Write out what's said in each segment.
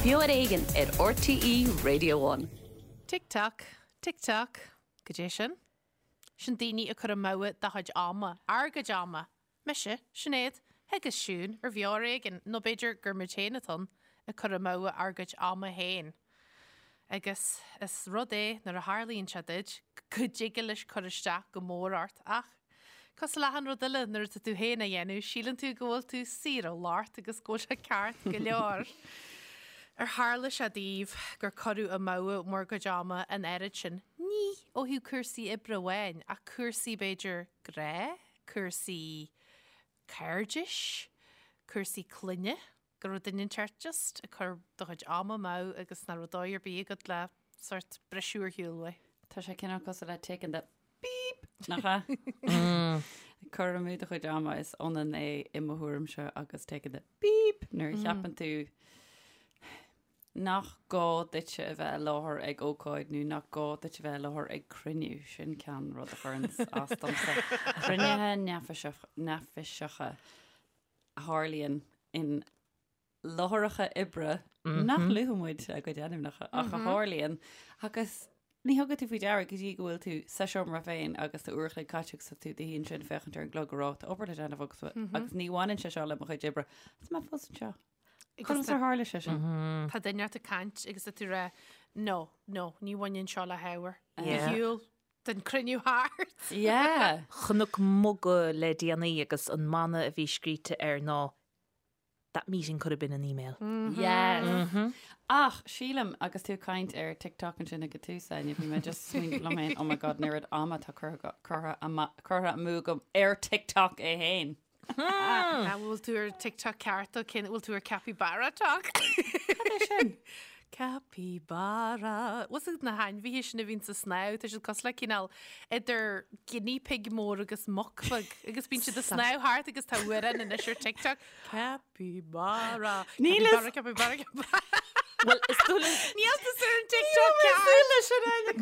Beo ar Éigean ar RTÉ Radio One. Tick tock, tick tock, goidé sin? Sin daoine ag cur amú do chuid ama, ár gcuid ama. Mise, Sinéad, agus Siún ar Bheo ar Éigean, nó b'fhéidir gur muid féin atá ann, ag cur amú ár gcuid ama féin. Agus is rud é nuair a tharlaíonn sé duit go dtig leis cur isteach go mór ort ach, cosúil le achan rud eile nuair atá tú féin á dhéanamh, síleann tú go bhfuil tú saor ó locht agus go bhfuil sé ceart go leor. Ar tharla sé daoibh gur cuireadh amú bhur gcuid ama an oiread sin, ní ó thaobh cúrsaí oibre amháin ach cúrsaí b'fhéidir grá, cúrsaí cairdis, cúrsaí clainne, go raibh duine inteacht just ag cur do chuid ama amú agus nach raibh dóigh ar bith agat le sort briseadh ar shiúl uaidh. Tá sé cineál cosúil le taking the beep, nach ea? Cur amú do chuid ama is ionann é i mo thuairimse agus taking the beep nuair a cheapann tú nach gá duitse a bheith i láthair ag ócáid nó nach gá duit a bheith i láthair ag cruinniú, sin ceann rud a chuireann as domsa. Cruinnithe neafaiseacha a tharlaíonn in láithreacha oibre nach luafaidh muid a gcuid ainmneacha ach a tharlaíonn agus ní thugann tú faoi deara go dtí go bhfuil tú sa seomra féin agus tá uair a chloig caite agus tá tú i do shuí ansin féachaint ar an gclog ag rá tá obair le déanamh agus agus ní bhaineann sé seo le mo chuid oibre. Tá mé fós anseo. Conas ar tharla sé sin? Tá duine ort ag caint agus tá tú ag rá no, no, ní bhaineann seo le hábhar. Ar shiúl den cruinniú thart. Yeah. Chonac muga le déanaí agus an mana a bhí scríte air ná That meeting could have been an email. Yes. Ach sílim agus tú ag caint ar TikTok ansin ag an tús, Áine, bhí mé just smaoineamh liom féin, oh my god, an oiread ama atá curtha curtha curtha amú agam ar TikTok é féin. An bhfuil tú ar TikTok ceart ó cén bhfuil tú ar Capybara Tok? Cad é sin? Capybara. Bhfuil fhios agat na hainmhithe sin a bhíonn ag snámh, tá siad cosúil le cineál idir guinea pig mór agus muc bheag agus bíonn siad ag snámh thart agus tá amhrán anois ar TikTok. Capybara. Níl Capybara, capybara, capybara. Bhuel, is dóigh liom... Níl tusa ar an TikTok ceart! Súil leis sin Áine,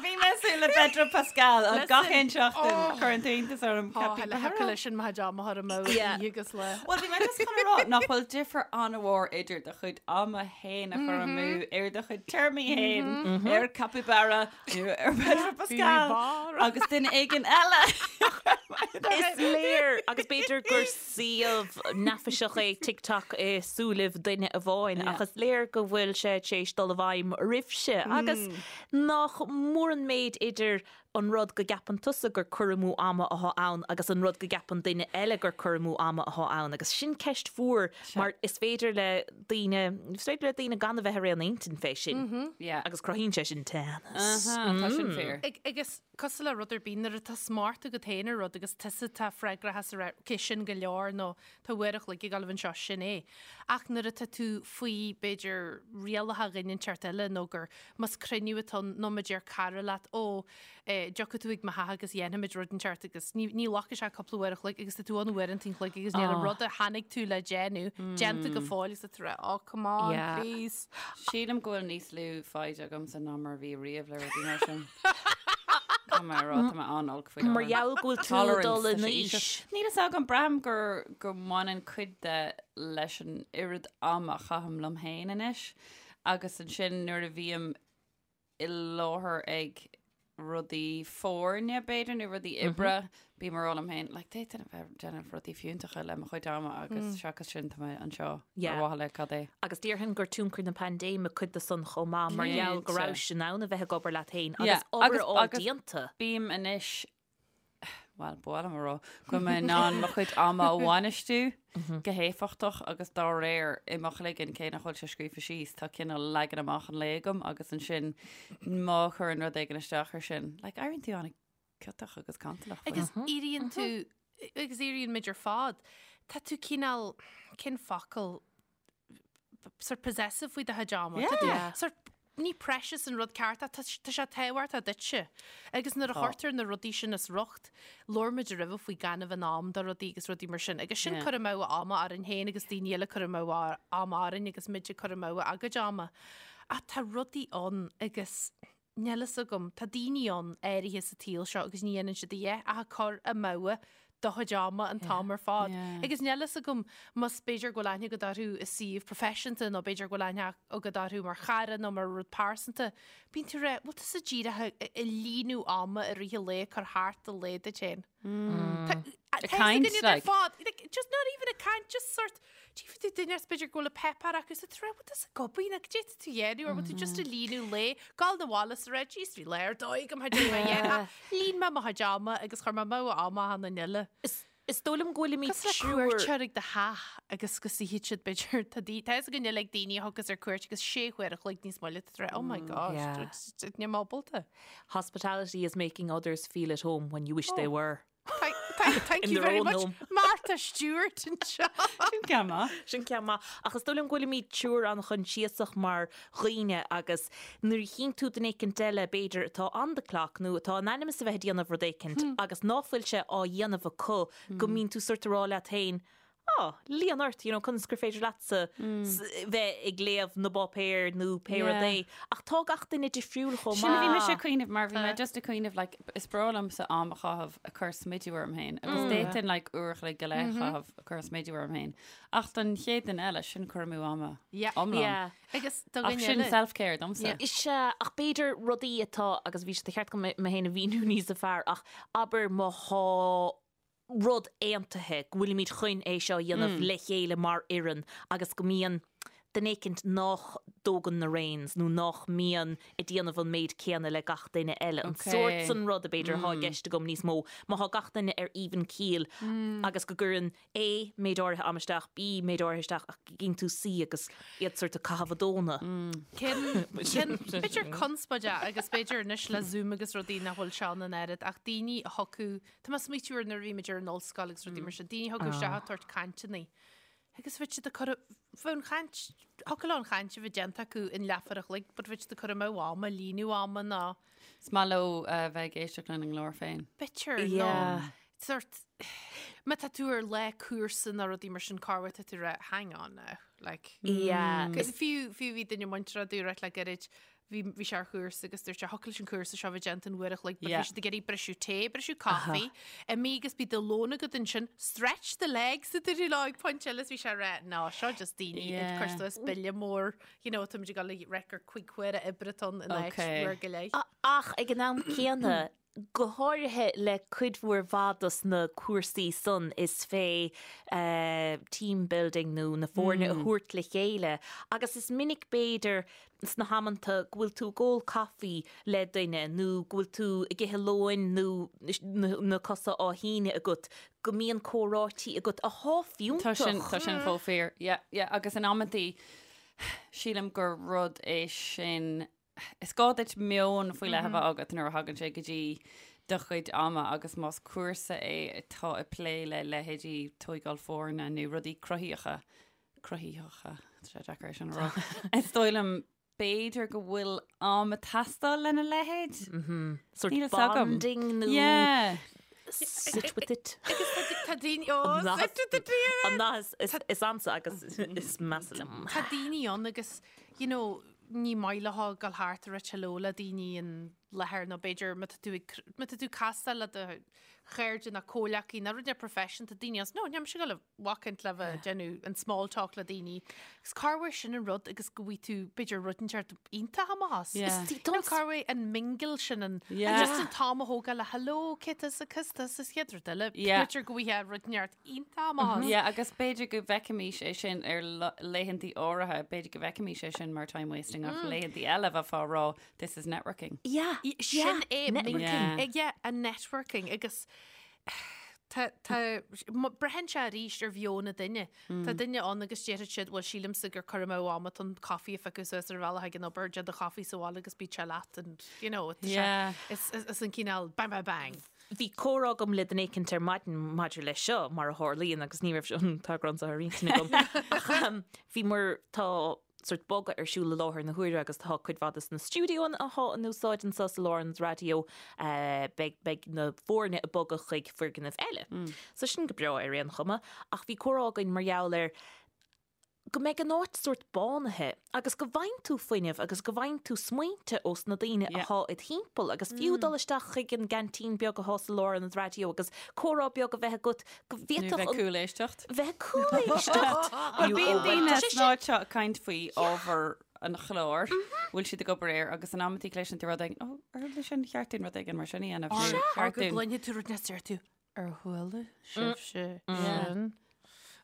Bhí mé ag súil le Pedro Pascal an gach aon seachtain oh. cuireann tú iontas orm oh, le heaca leis sin má am a amú agus le. Well bhí mé just chun a rá nach bhfuil difear an-mhór idir do chuid ama féin a chur amú ar do chuid téarmaí féin ar capybara nó ar Pedro Pascal agus duine éigin eile. Is léir agus b'fhéidir gur suíomh neafaiseach é TikTok i súilibh duine amháin ach is léir go bhfuil sé tar éis dul i bhfeidhm oraibhse agus nach mór an méid idir an rud go gceapann tusa gur cur amú ama athá ann agus an rud go gceapann duine eile gur cur amú ama athá ann agus sin ceist mhór mar is féidir le daoine, is féidir le daoine gan a bheith ar aon intinn fé sin agus cruthaíonn sé sin teannas. Tá sin fíor. Agus cosúil le rud ar bith, nuair atá smacht agat féin ar rud agus tusa atá freagrach as a rá, ok, sin go leor nó tá uair a chloig ag gabháil anseo, sin é. Ach nuair atá tú faoi, b'fhéidir, rialacha dhuine inteacht eile nó gur, más cruinniú atá ann nó má deir cara leat, ó, eh, dtiocfaidh tú ag mo theach agus dhéanfaimid rud inteacht agus ní, ní ghlacfaidh sé cúpla uair a chloig agus tá tú ann uaireanta an chloig agus níl an rud a tháinig tú le déanamh déanta go fóill agus tá tú ag rá, oh, come on, Yeah. please. Sílim go bhfuil níos lú foighid agamsa ná mar a bhí riamh le rudaí mar sin. Tá mé rá, tá mé an-olc faoi Mar gheall go bhfuil tú ag dul in aois. Níl fhios agam, braithim gur go mbaineann cuid de leis an oiread ama a chaithim liom féin anois agus ansin nuair a bhím i láthair ag rudaí foirne b'fhéidir nó rudaí oibre, bím ag rá liom féin, like, d'fhéadfainn a bheith ag déanamh rudaí fiúntacha le mo chuid ama agus seachas sin tá mé anseo ar mhaithe le cad é. Agus déarfainn gur tionchar na paindéime cuid de san chomh maith mar gheall go rabhais in ann a bheith ag obair leat féin agus obair a fháil déanta. Bím anois bhuel, ba mhaith liom a rá go bhfuil mé in ann mo chuid ama a bhainistiú go héifeachtach agus dá réir i mo chloigeann, cé nach bhfuil sé scríofa síos, tá cineál leagan amach an lae agam agus ansin má chuireann rud éigin isteach ar sin, like, éiríonn tú an-ciotach agus cantalach faoi. Agus éiríonn tú, agus éiríonn muid ar fad, tá tú cineál, cén focal, sort possessive faoi do chuid ama. Tá tú Yeah. sort ní precious an rud ceart ach tá tá sé tábhachtach duitse. Agus nuair a Tá. chuirtear na rudaí sin as riocht, labhair muid roimhe faoi gan a bheith in am do rudaí agus rudaí mar sin. Agus sin Yeah. cur amú ama orainn féin agus daoine eile cur amú ama orainn agus muid ag cur amú a gcuid ama. Ach tá rudaí ann agus níl fhios agam, tá daoine ann áirithe sa tsaol seo agus ní dhéanann siad a dhath ach ag cur amú. do chuid ama an t-am ar fad. Agus níl fhios agam más b'fhéidir go bhfuil aithne agat orthu i suíomh proifisiúnta nó b'fhéidir go bhfuil aithne agat orthu mar chara nó mar rud pearsanta, bíonn tú ag rá, bhfuil tusa díreach ag líonadh ama i rith an lae, ag cur thart an lae duit féin. Tá Ag caint, like. Fad, like, just not even ag caint, just sort, tchífidh tú duine is b'fhéidir go bhfuil an páipéar acu is tú ag rá, bhfuil tusa ag obair nó cad é tá tú a dhéanamh or bhfuil tú just ag líonadh lae, gabháil 'na bhaile is ag rá, jeez, bhí lá ar dóigh agam, tha mé dhéanamh. Líon mé mo chuid ama agus chuir mé amú ama achan duine eile. Is dóigh liom go bhfuilimid Cosúil le triúr. cuairteoir ag do theach agus go suífidh siad b'fhéidir tá daoine tá fhios againn uilig daoine a thiocfas ar cuairt agus sé huaire a chloig níos moille tá tú ag rá oh my gosh Yeah. níl mé ábalta. Hospitality is making others feel at home when you wish they were. Thank, thank, thank In you their very own much home. Martha Stewart anseo. Sin ceann maith. Sin ceann maith. Ach is dóigh liom go bhfuilimid triúr an-choinsiasach mar dhaoine agus nuair a chíonn tú duine éicint eile, b'fhéidir, atá on the clock nó atá in ainm is a bheith ag déanamh rud éicint agus ná fuil sé á dhéanamh acu, go mbíonn tú sort ag rá leat féin, Á, líon ort, you know, conas gur féidir leatsa bheith ag léamh na bpáipéar nó pé rud é. Ach tá gach duine difriúil chomh Sin a bhí maith. mise ag cuimhneamh mar bhí mé just ag cuimhneamh like, is breá liomsa am a chaitheamh ag cur smidiú orm féin agus d'fhéadfainn like uair a chloig go leith a chaitheamh ag cur smidiú orm féin. Ach don chéad duine eile, sin cur amú ama Yeah. iomlán. Yeah. Agus do Ach dhuine sin eile. self-care domsa. Is ea, ach b'fhéidir rudaí atá, agus bhí sé de cheart agam mé féin a mhíniú níos fearr, ach abair má thá rud aontaithe go bhfuilimid chun é seo a dhéanamh le chéile mar fhoireann agus go mbíonn duine éicint nách dtógann na reins nó nách mbíonn ag déanamh an méid céanna le gach duine eile. An sórt san rud a b'fhéidir athá i gceist agam níos mó. Má thá gach duine ar even keel agus go gcuireann A méid áirithe ama isteach, B méid áirithe isteach ach go gcíonn tú C agus iad sórt ag caitheamh a dtóna. Cén, cén, b'fhéidir conspóid é agus b'fhéidir anois le Zoom agus rudaí nach bhfuil seo ann an oiread ach daoine a thiocfadh, tá mé ag smaoitiú ar nuair a bhí muid ar an ollscoil agus rudaí mar sin, daoine a thiocfadh isteach ag tabhairt cainteanna agus bheadh siad ag cur, bheadh an chaint, thiocfadh leo an chaint a bheith déanta acu in leathuair a chloig but bheadh siad ag cur amú ama, líonadh ama ná. Is maith leo a bheith ag éisteacht lena nglór féin. B'fhéidir, nó sort, má tá tú ar lá cúrsa nó rudaí mar sin corruair tá tú ag rá hang on now, like. Yeah. Cos fiú, fiú bhí duine muinteartha dúirt le gairid, bhí, bhí sé ar chúrsa agus dúirt sé thiocfadh leis an cúrsa seo bheith déanta in uair a chloig, but bhí siad ag iarraidh briseadh tae, briseadh caife, imigh agus bíodh do lón agat ansin, stretch the legs a dúradh leo ag pointe eile is bhí sé ag rá, no, seo just daoine ag cur suas bille mór, you know, táimid ag dul ag rá gur cuig huaire oibre atá ann in áit uair go leith. Ach ag an am céanna, go háirithe le cuid mhór mhaith dos na cúrsaí san is fé team building nó na foirne a thabhairt le chéile agus is minic b'fhéidir sna hamanta go bhfuil tú ag ól caife le duine nó go bhfuil tú ag ithe lóin nó na cosa á shíneadh agat go mbíonn comhráití agat athá Tá sin, fiúntach. tá sin chomh fíor. Yeah, yeah, agus in amantaí sílim gur rud é sin Is gá duit meon faoi leith a bheith agat nuair a thagann sé go dtí do chuid ama agus más cúrsa é atá ag plé le leithéidí tóigáil foirne nó rudaí cruthaíocha, cruthaitheacha, tá sé deacair é sin a rá, is dóigh liom b'fhéidir go bhfuil am ag teastáil lena leithéid. Sort Níl a fhios agam. bonding nó Yeah. sit with it. Agus tá daoine, oh, sit with it. An nath is ansa agus is measa liom. Tá daoine ann agus, you know, ní maith leo dul thart ag rá hello le daoine in láthair nó b'fhéidir má tá tú ag, má tá tú ag castáil le do chairde nó comhleacaí nó rud ar profession tá daoine as, no, níl mise ag dul a bhacaint le bheith ag déanamh an small talk le daoine. Agus corruair sin an rud agus go bhfaighidh tú b'fhéidir rud inteacht iontach amach as. Yeah. Is nó corruair an mingle sin an, Yeah. just an t-am a thógáil le hello, cé tusa, cos tusa, is chéad rud eile. Yeah. B'fhéidir go bhfaighidh rud inteacht iontach amach as. Yeah, agus b'fhéidir go bhfeicfimis é sin ar laethantaí áirithe, b'fhéidir go bhfeicfimis é sin mar time wasting ach laethantaí eile bheifeá ag rá this is networking. Yeah, Sin é networking. Yeah. Yeah, an networking agus tá, tá, braitheann sé arís ar mheon an duine. Tá duine ann agus déarfaidh siad, bhuel sílimse gur cur amú ama atá ann caife a phiocadh suas ar an bhealach ag an obair, déan do chaife sa bhaile agus bíodh sé leat and you know, tá sé, Yeah. is, is, is an cineál bang bang bang. Bhí comhrá agam le duine éicint ar maidin maidir leis seo, mar a tharlaíonn, agus ní raibh an t-eagrán seo ar intinn agam. Ach bhí mar tá sort bogadh ar siúl i láthair na huaire agus tá cuid mhaith de na stiúideoanna athá in úsáid anseo sa Lárionad Raidió, beidh, beidh na foirne ag bogadh chuig foirgneamh eile. So sin go breá ar aon chuma. Ach bhí comhrá againn mar gheall ar. go mbeidh an áit sórt bánaithe agus go bhfaigheann tú fuinneamh agus go bhfaigheann tú smaointe ós na daoine athá id thimpeall agus fiú dul isteach chuig an gceaintín beag athá sa lárionad raidió agus comhrá beag a bheith agat go Nó bhféadfadh bheith an cúléisteacht. bheith cúléisteacht! Bhuel bíonn daoine san áit seo ag caint faoi ábhar an chláir, bhfuil siad ag obair air agus in amantaí cloiseann tú rud éigin, ó, ar leis sin cheart dúinn rud éigin mar sin a dhéanamh nó Or cheart go dúinn. gcluinfidh tú rud níos deir tú Ar chuala sibhse sin?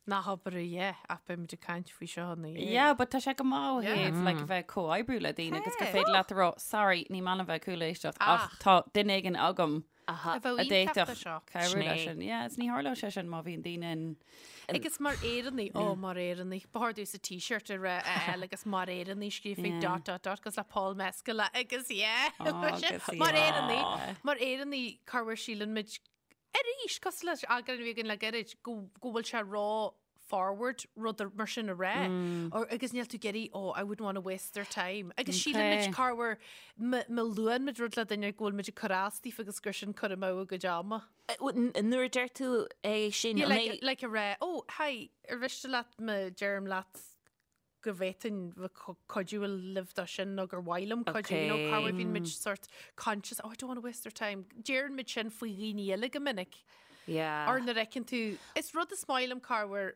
Nach obair a yeah, ach beimid ag caint faoi seo ina dhiaidh. Yeah, but tá sé go maith ó Yeah. thaobh like, a bheith ag comhoibriú le daoine agus gur Hey. féidir leat a rá, sorry, ní maith liom bheith ag cúléisteacht ach Ach. tá duine éigin agam A a bheadh iontach do d'fhéadfadh seo. cabhrú Sin é. leis sin. Yeah, is ní tharlódh sé sin má bhíonn daoine in Agus mar Éireannaigh, ó mar Éireannaigh, ba chóir domhsa t-shirt a rá a fháil agus mar Éireannaigh scríofa Yeah. dot dot dot agus le Paul Mescal agus yeah. Agus Mar yeah. Éireannaigh, mar Éireannaigh, corruair síleann muid Arís, cosúil leis an eagrán a bhí againn le gairid, go go bhfuil sé ró forward rud mar sin a rá. Or, agus níl tú ag iarraidh, oh, I wouldn't want to waste their time. Agus síleann muid Okay. corruair má má luann muid rud le duine go bhfuil muid ag cur as daofa agus gur sin cur amú a gcuid ama. Nuair a deir tú é sin, Yeah, an like, é- like a rá, oh, hi, ar mhiste leat má deirim leat go bhféadfainn bheith cuidiú libh dó sin nó gur mhaith liom cuidiú, you know, Okay. corruair bíonn muid sort conscious, oh, I don't want to waste their time. Deireann muid sin faoi dhaoine eile go minic. Yeah. Or nuair a fheiceann tú, is rud is maith liom corruair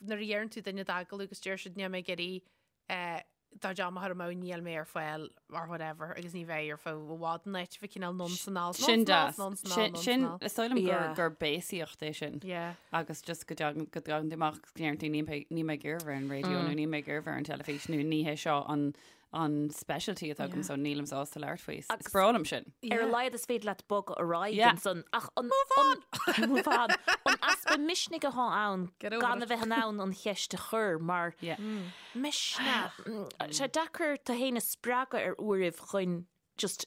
nuair a iarrann tú duine d'agallamh agus deir siad níl mé ag iarraidh eh, do chuid ama a chur amú níl mé ar fáil or whatever agus ní bheidh ar feadh i bhfad an áit bheith cineál nonce anall. Sin deas. Sin, sin, is dóigh liom gur, Yeah. gur béasaíocht é sin. Yeah. Agus just go dtagann go dtagann tú amach go ndeireann tú níl mé níl mé ag iarraidh bheith ar an raidió nó níl mé ag iarraidh bheith ar an teilifís nó ní hé seo an an specialty atá agam so nílim sásta labhairt faoi. Is Agus- breá liom sin. Ar a laghad is féidir leat bogadh ar aghaidh Yeah. ansan ach an Move on! Move on! An easpa misnigh atá ann Get over gan it. a bheith in ann an cheist a chur mar Yeah. Misneach. Sé deacair tú féin a spreagadh ar uairibh chun just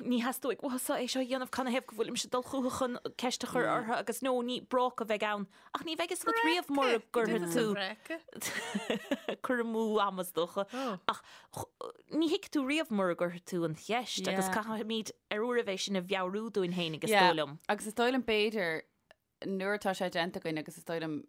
ní theastóidh uatsa é seo a dhéanamh canathaobh go bhfuilimse ag dul chucu chun ceist a chur orthu agus nó ní bráca a bheidh ann ach ní bheidh fhios agat riamh mura gcuirfidh tú cur amú ama is dócha ach ní thuigfidh tú riamh mura gcuirfidh tú an cheist agus caithfimid ar uairibh é sin a mheabhrú dúinn féin agus is dóigh liom. Agus is dóigh liom b'fhéidir nuair atá sé déanta againn agus is dóigh liom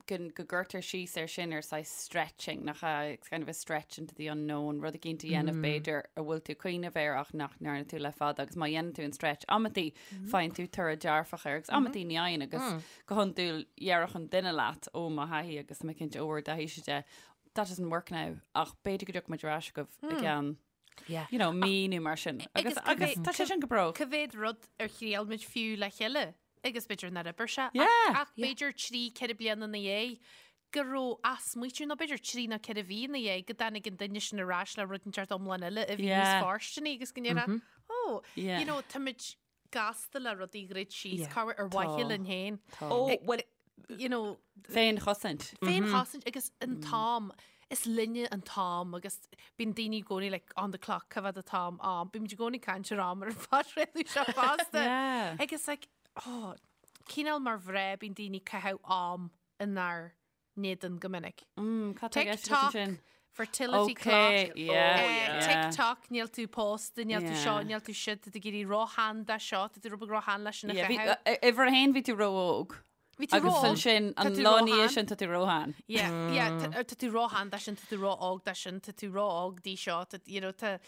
go go gcuirtear síos air sin ar saghas stretching, nach ea? It's kind of a stretch into the unknown, rud eicínt a dhéanamh b'fhéidir a bhfuil tú ag cuimhneamh air ach nach ndearna tú le fada agus má dhéanann tú an stretch amantaí faigheann tú toradh dearfach air agus amantaí ní fhaigheann agus go hiondúil déarfadh an duine leat ó mo thaithí agus tá mé cinnte ó bhur dtaithíse de that doesn't work now ach b'fhéidir go dtiocfaidh muid ar ais chugaibh i gceann Yeah. you know, mí nó mar sin. Agus, Agus agus tá sé sin go breá. Cá mhéad rud ar thriail muid fiú le chéile agus b'fhéidir nár oibir sé. Yeah. Ach b'fhéidir 3, 4 bliana ina dhiaidh go raibh athsmaoitiú nó b'fhéidir 3 nó 4 mhí ina dhiaidh go dtáinig an duine sin ar ais le rud inteacht iomlán eile a bhí níos Yeah. fóirsteanaí agus go ndéarfá, oh, Yeah. you know, táimid gasta le rudaí a dhruid síos, Yeah. corruair ar mhaithe linn féin. Ó, bhuel, You know, Féinchosaint. féinchosaint agus an t-am, is linne an t-am agus bíonn daoine i gcónaí like on the clock, cá fhad an t-am, am, bímid i gcónaí ag caint ar am ar an phodchraoladh seo fosta. Yeah. Agus like, oh, cineál mar mhná bíonn daoine ag caitheamh am inár n-éadan go minic. Mm, cad tá i gceist agat TikTok, ansin? fertility Okay, clock, yeah, eh, yeah. TikTok, níl tú pósta, níl tú seo, Yeah. níl tú siúd, tá tú ag éirí róshean dó seo, tá tú rud beag róshean leis sin a Yeah, bhí- chaitheamh. eh, Uimhir a haon bhí tú ró-óg. Bhí tú Agus ró-óg, ansin tá an tú lá ina róshean. dhiaidh sin tá tú róshean. Yeah, yeah, tá tá tú róshean dó sin, tá tú ró-óg dó sin, tá tú ró-óg dí seo, tá, you know, tá,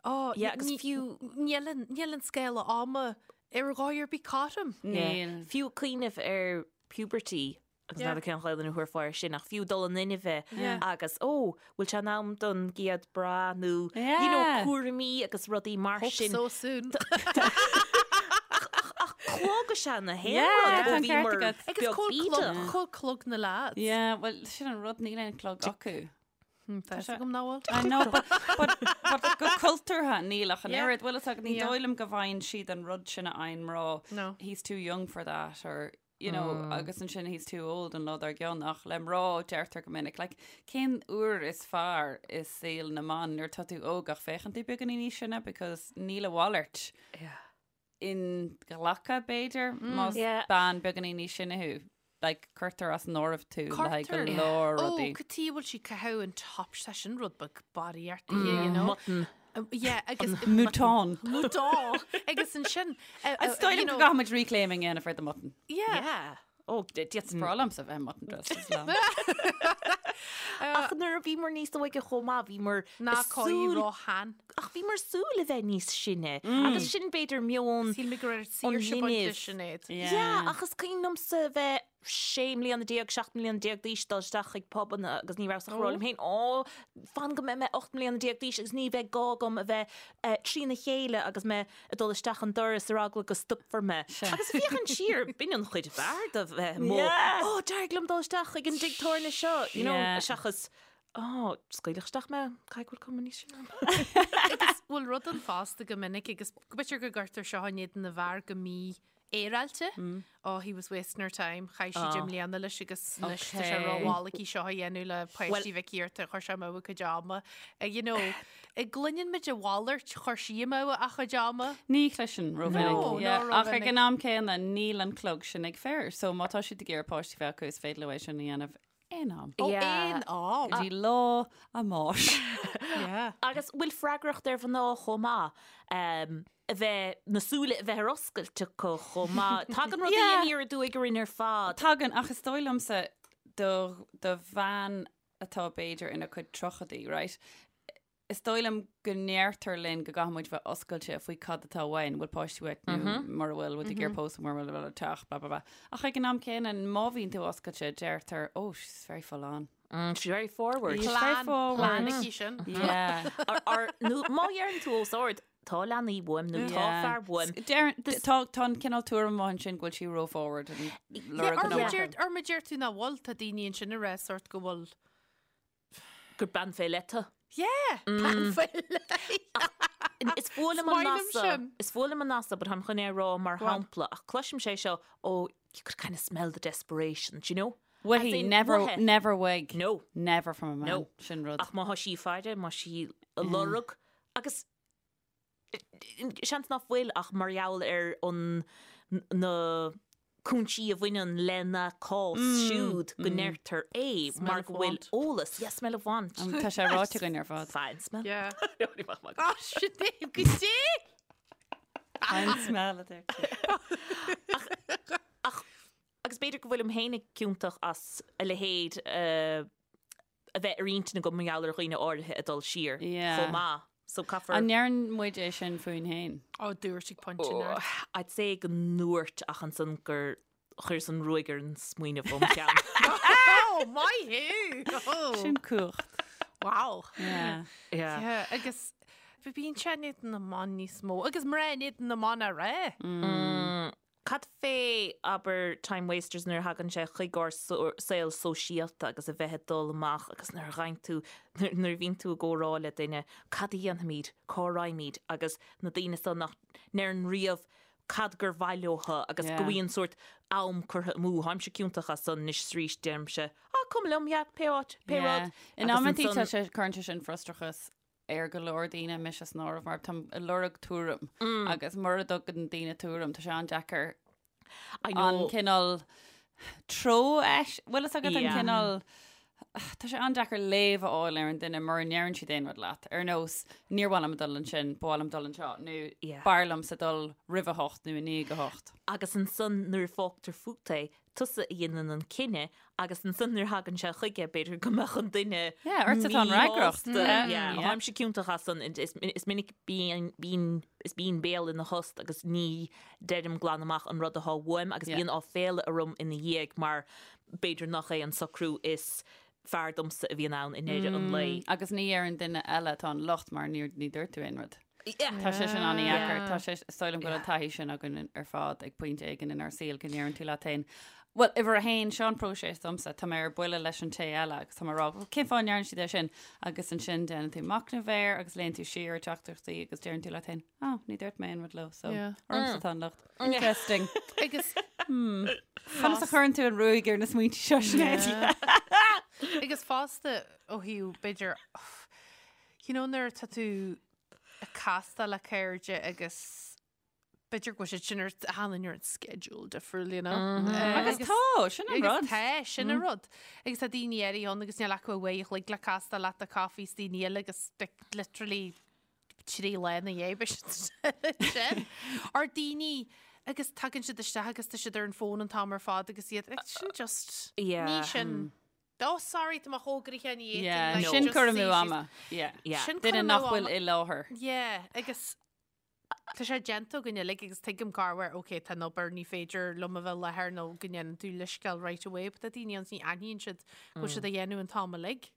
oh, Yeah, agus ní- fiú- níl an, níl an scála ama ar dhóigh ar bith cothrom. Níl. Fiú cuimhneamh ar puberty agus Yeah. n'fheadar cén Ghaelainn a thabharfá air sin ach fiú dul in inmhe Yeah. agus ó, bhfuil sé in am don gcéad bra nó you know, Yeah. cúraimí agus rudaí mar Hope sin. so soon. Ach clog is ea na haon Yeah, rud tá ó an bhí ceart mar agat. Agus beag cá bhfuil clog, bídeach. cá bhfuil clog na lads. Yeah, well, sin an rud níl aon clog acu. Tá a fhios agam nach bhfuil. I know, but, but, but go cultúrtha níl ach an Yeah. oiread. Bhfuil fhios agat, ní Yeah. dóigh liom go bhfaigheann siad an rud sin a fhaigheann mná. No. He's too young for that or you know, agus ansin he's too old an lá dár gcionn ach le mná deirtear go minic. Like, cén uair is fearr i saol na mban nuair tá tú óg ach féachann tú beagáinín níos sine because níl a mhalairt inghlactha b'fhéidir más Yeah. bean beagáinín níos sine thú. Like, cuirtear as an áireamh tú le haghaidh go Cuirtear. leor Ó, rudaí. cad chuige a bhfuil sí ag caitheamh an top sé sin rud beag barraíocht you know? Mutton. Yeah, agus Mouton. Mouton. Agus ansin Is dóigh liom go gcaithfimid reclaiming a dhéanamh ar the mutton. Yeah. Yeah. Ó, d'fhéadfainn. Breá liomsa bheith mutton dressed as lamb. Ach nuair a bhíomar níos óige chomh maith, bhíomar Ná ag cóí súil, róshean. ach bhíomar ag súil a bheith níos sine. Agus sin b'fhéidir meon Shíl mé go raibh an saoirse bainte linbh. Sinéad. Yeah, ach is cuimhin liomsa a bheith 16 mbliana, 17 mbliana d'aois dul isteach chuig pubanna agus ní rabhas ach ag rá liom féin, Ó, fan go mbeidh mé 18 mbliana d'aois agus ní bheidh gá agam a bheith trína chéile agus mé ag dul isteach an doras ar eagla go stopfar mé. Agus féachaint siar, b'in an chuid b'fhearr de bheith amuigh. Ó, d'éirigh liom dul isteach chuig an dtigh tábhairne seo, you know, seachas, Ó, scaoileadh isteach mé, caithfidh go bhfuil cuma níos sine orm. Agus bhfuil rud ann fosta go minic agus b'fhéidir go gcuirtear seo in éadan na bhfear go mí-fhéaráilte. Oh, he was wasting her time. Chaith sí 10 mbliana leis agus anois tá sé rómhall aici seo a dhéanamh le páistí Mhic Iarta, chuir sé amú a cuid ama. You know, gcluineann muid a mhalairt, chuir sí amú a cuid ama. Ní chloiseann rómhinic. No, Yeah, no, Ach ag rómhinic. an am céanna níl an clog sin ag fir, so má tá siad ag iarraidh páistí bheith acu is féidir leo é sin a dhéanamh aon am. Ó, aon am. Go dtí lá a mbáis. Yeah. Agus bhfuil freagracht ar mhná chomh maith a bheith, na súile a bheith ar oscailt acu chomh maith. Tagann rudaí Yeah. aniar aduaidh orainn ar fad. Tagann, ach is dóigh liomsa do, do bhean atá b'fhéidir ina cuid tríochaidí, right? Is dóigh liom go ndeirtear linn go gcaithfidh muid bheith oscailte faoi cad atá uainn, bhfuil páistí uait nó mura bhfuil, bhfuil tú ag iarraidh pósadh, mura bhfuil, bhfuil teach, blah blah blah. Ach ag an am céanna, má bhíonn tú oscailte, deirtear, oh, she's very full on. She's very forward. She's very Plan, forward. plan aici sin. Yeah. Or, or, nó má dheireann tú os ard, tá leanaí uaim nó tá Yeah. fear uaim. Deireann, tá, tá an cineál tuairim amháin sin go bhfuil sí ró-forward and lorg Or an má iomarca. deir- or má deir tú nach bhfuil, tá daoine ansin ag rá sort go bhfuil Gur bean fé leith tú. Yeah! Bean fé leith. Is fuath liom an Is maith liom nath seo. sin. Is fuath liom an nath seo, but táim chun é a rá mar Go on. shampla, ach cloisim sé seo, oh, you could kind of smell the desperation, do you know? Uaithi, As in, never, uaithi. never uaidh. No. Never from a man. No. Sin rud. Ach má thá sí ag faire, má sí ag lorg, agus seans nach bhfuil ach mar gheall ar an na cúinsí a bhaineann lena cás siúd go ndeirtear é mar go bhfuil eolas. Yeah, smell of want. Tá sé ráite againn ar fad. Fine smell. Yeah. Ah, sin é go dté! Fine smell a deir tú. Ach, agus b'fhéidir go bhfuilim féinig ciontach as a leithéid a bheith ar intinn agam mar gheall ar dhaoine áirithe ag dul siar chomh maith. So caithfear. An ndeireann muid é sin fúinn féin? Ó, dúirt ag pointe Oh, neart. I'd say go ndúirt ach ansan gur chuireas an ruaig ar an smaoineamh óm cheann. Oh, maith thú! Oh. Sin cumhacht. Wow. Yeah. Yeah. Yeah, agus bíonn sé in éadan na mban níos mó, agus mná in éadan na mban a rá. Cad fé, abair, time wasters nuair a thagann sé chuig ár saol sóisialta agus a bheith ag dul amach agus nuair a ghabhann tú, nuair a bhíonn tú i gcomhrá le duine, cad a dhéanfaimid, cá raghaimid agus na daoine so nach ndeireann riamh cad gur mhaith leotha agus go Yeah. bhíonn sórt am curtha amú. Táimse ciontach as san anois is arís, deirimse, ah, cuma liom, yeah, pé áit, pé Yeah. rud. In Agus amantaí tá ansan- sé, cuireann sé sin frustrachas ar go leor daoine, mise san áireamh, mar táim ag lorg tuairim agus mura dtugann daoine tuairim, tá sé an-deacair I an know. cineál treo eis, bhfuil fhios agat an Yeah. cineál, tá sé an-deacair léamh a fháil ar an duine mura ndeireann siad aon rud leat, ar nós níor mhaith liom dul ansin, ba mhaith liom dul anseo, nó Yeah. b'fhearr liomsa dul roimh a hocht nó i ndiaidh a hocht. Agus ansan nuair a fágtar fút é, tusa a dhéanann an cinneadh agus ansan nuair a thagann sé chuige, b'fhéidir go mbeadh an duine Yeah, ortsa atá an fhreagracht. míshásta. Yeah. Yeah, Yeah. Táimse ciontach as san, is is minic bíonn bíonn is bíonn béal ina thost agus ní deirim glan amach an rud atá uaim agus Yeah. bíonn áiféala orm ina dhiaidh mar b'fhéidir nach é an socrú is fearr domsa a bhíonn ann i ndeireadh an lae. Agus ní ar an duine eile atá an locht mar níor ní dúirt tú aon rud. Yeah. Tá sé sin an-dheacair. Tá sé is dóigh liom go bhfuil an taithí sin againn ar fad ag pointe éigin inár saol go ndeireann tú leat féin, Bhuel, uimhir a haon, seo an próiseas domsa, tá mé ar buile leis an té eile agus tá mé ag rá, bhuel, cén fáth a ndeireann siad é sin? Agus ansin déanann tú machnamh air agus léann tú siar ar teachtaireachtaí agus deireann tú leat féin, oh, ní dúirt mé aon rud leo, so Yeah. ormsa atá an locht. Interesting. Agus Conas a chuireann tú an ruaig ar na smaointe seo, Sinéad? Agus fosta ó thaobh b'fhéidir you know nuair atá tú ag castáil le cairde agus b'fhéidir go bhfuil siad sin ar tháinig ar an schedule difriúil, you know. Agus tá, sin an Agus rud. tá, sin an rud. Agus tá daoine áirithe ann agus níl acu uair a chloig le castáil leat do coffee is daoine eile agus like, literally 3 lá ina dhiaidh beidh siad sin. Or daoine Agus tagann siad isteach agus tá siad ar an fón an t-am ar fad agus iad like, sin just Yeah. ní sin. Oh sorry tá mé chomh gnoitheach ní fhéadfainn, Yeah, like, sin just cur amú suí síos. ama. Yeah. Yeah. Sin cur Duine amú nach bhfuil ama. i láthair. Yeah, agus tá sé déanta againn uilig agus tuigim corruair, ok, tá an obair, ní féidir liom a bheith i láthair nó go ndéanann tú leithscéal right away, but tá daoine ann ní aithníonn siad go bhfuil siad á dhéanamh an t-am uilig.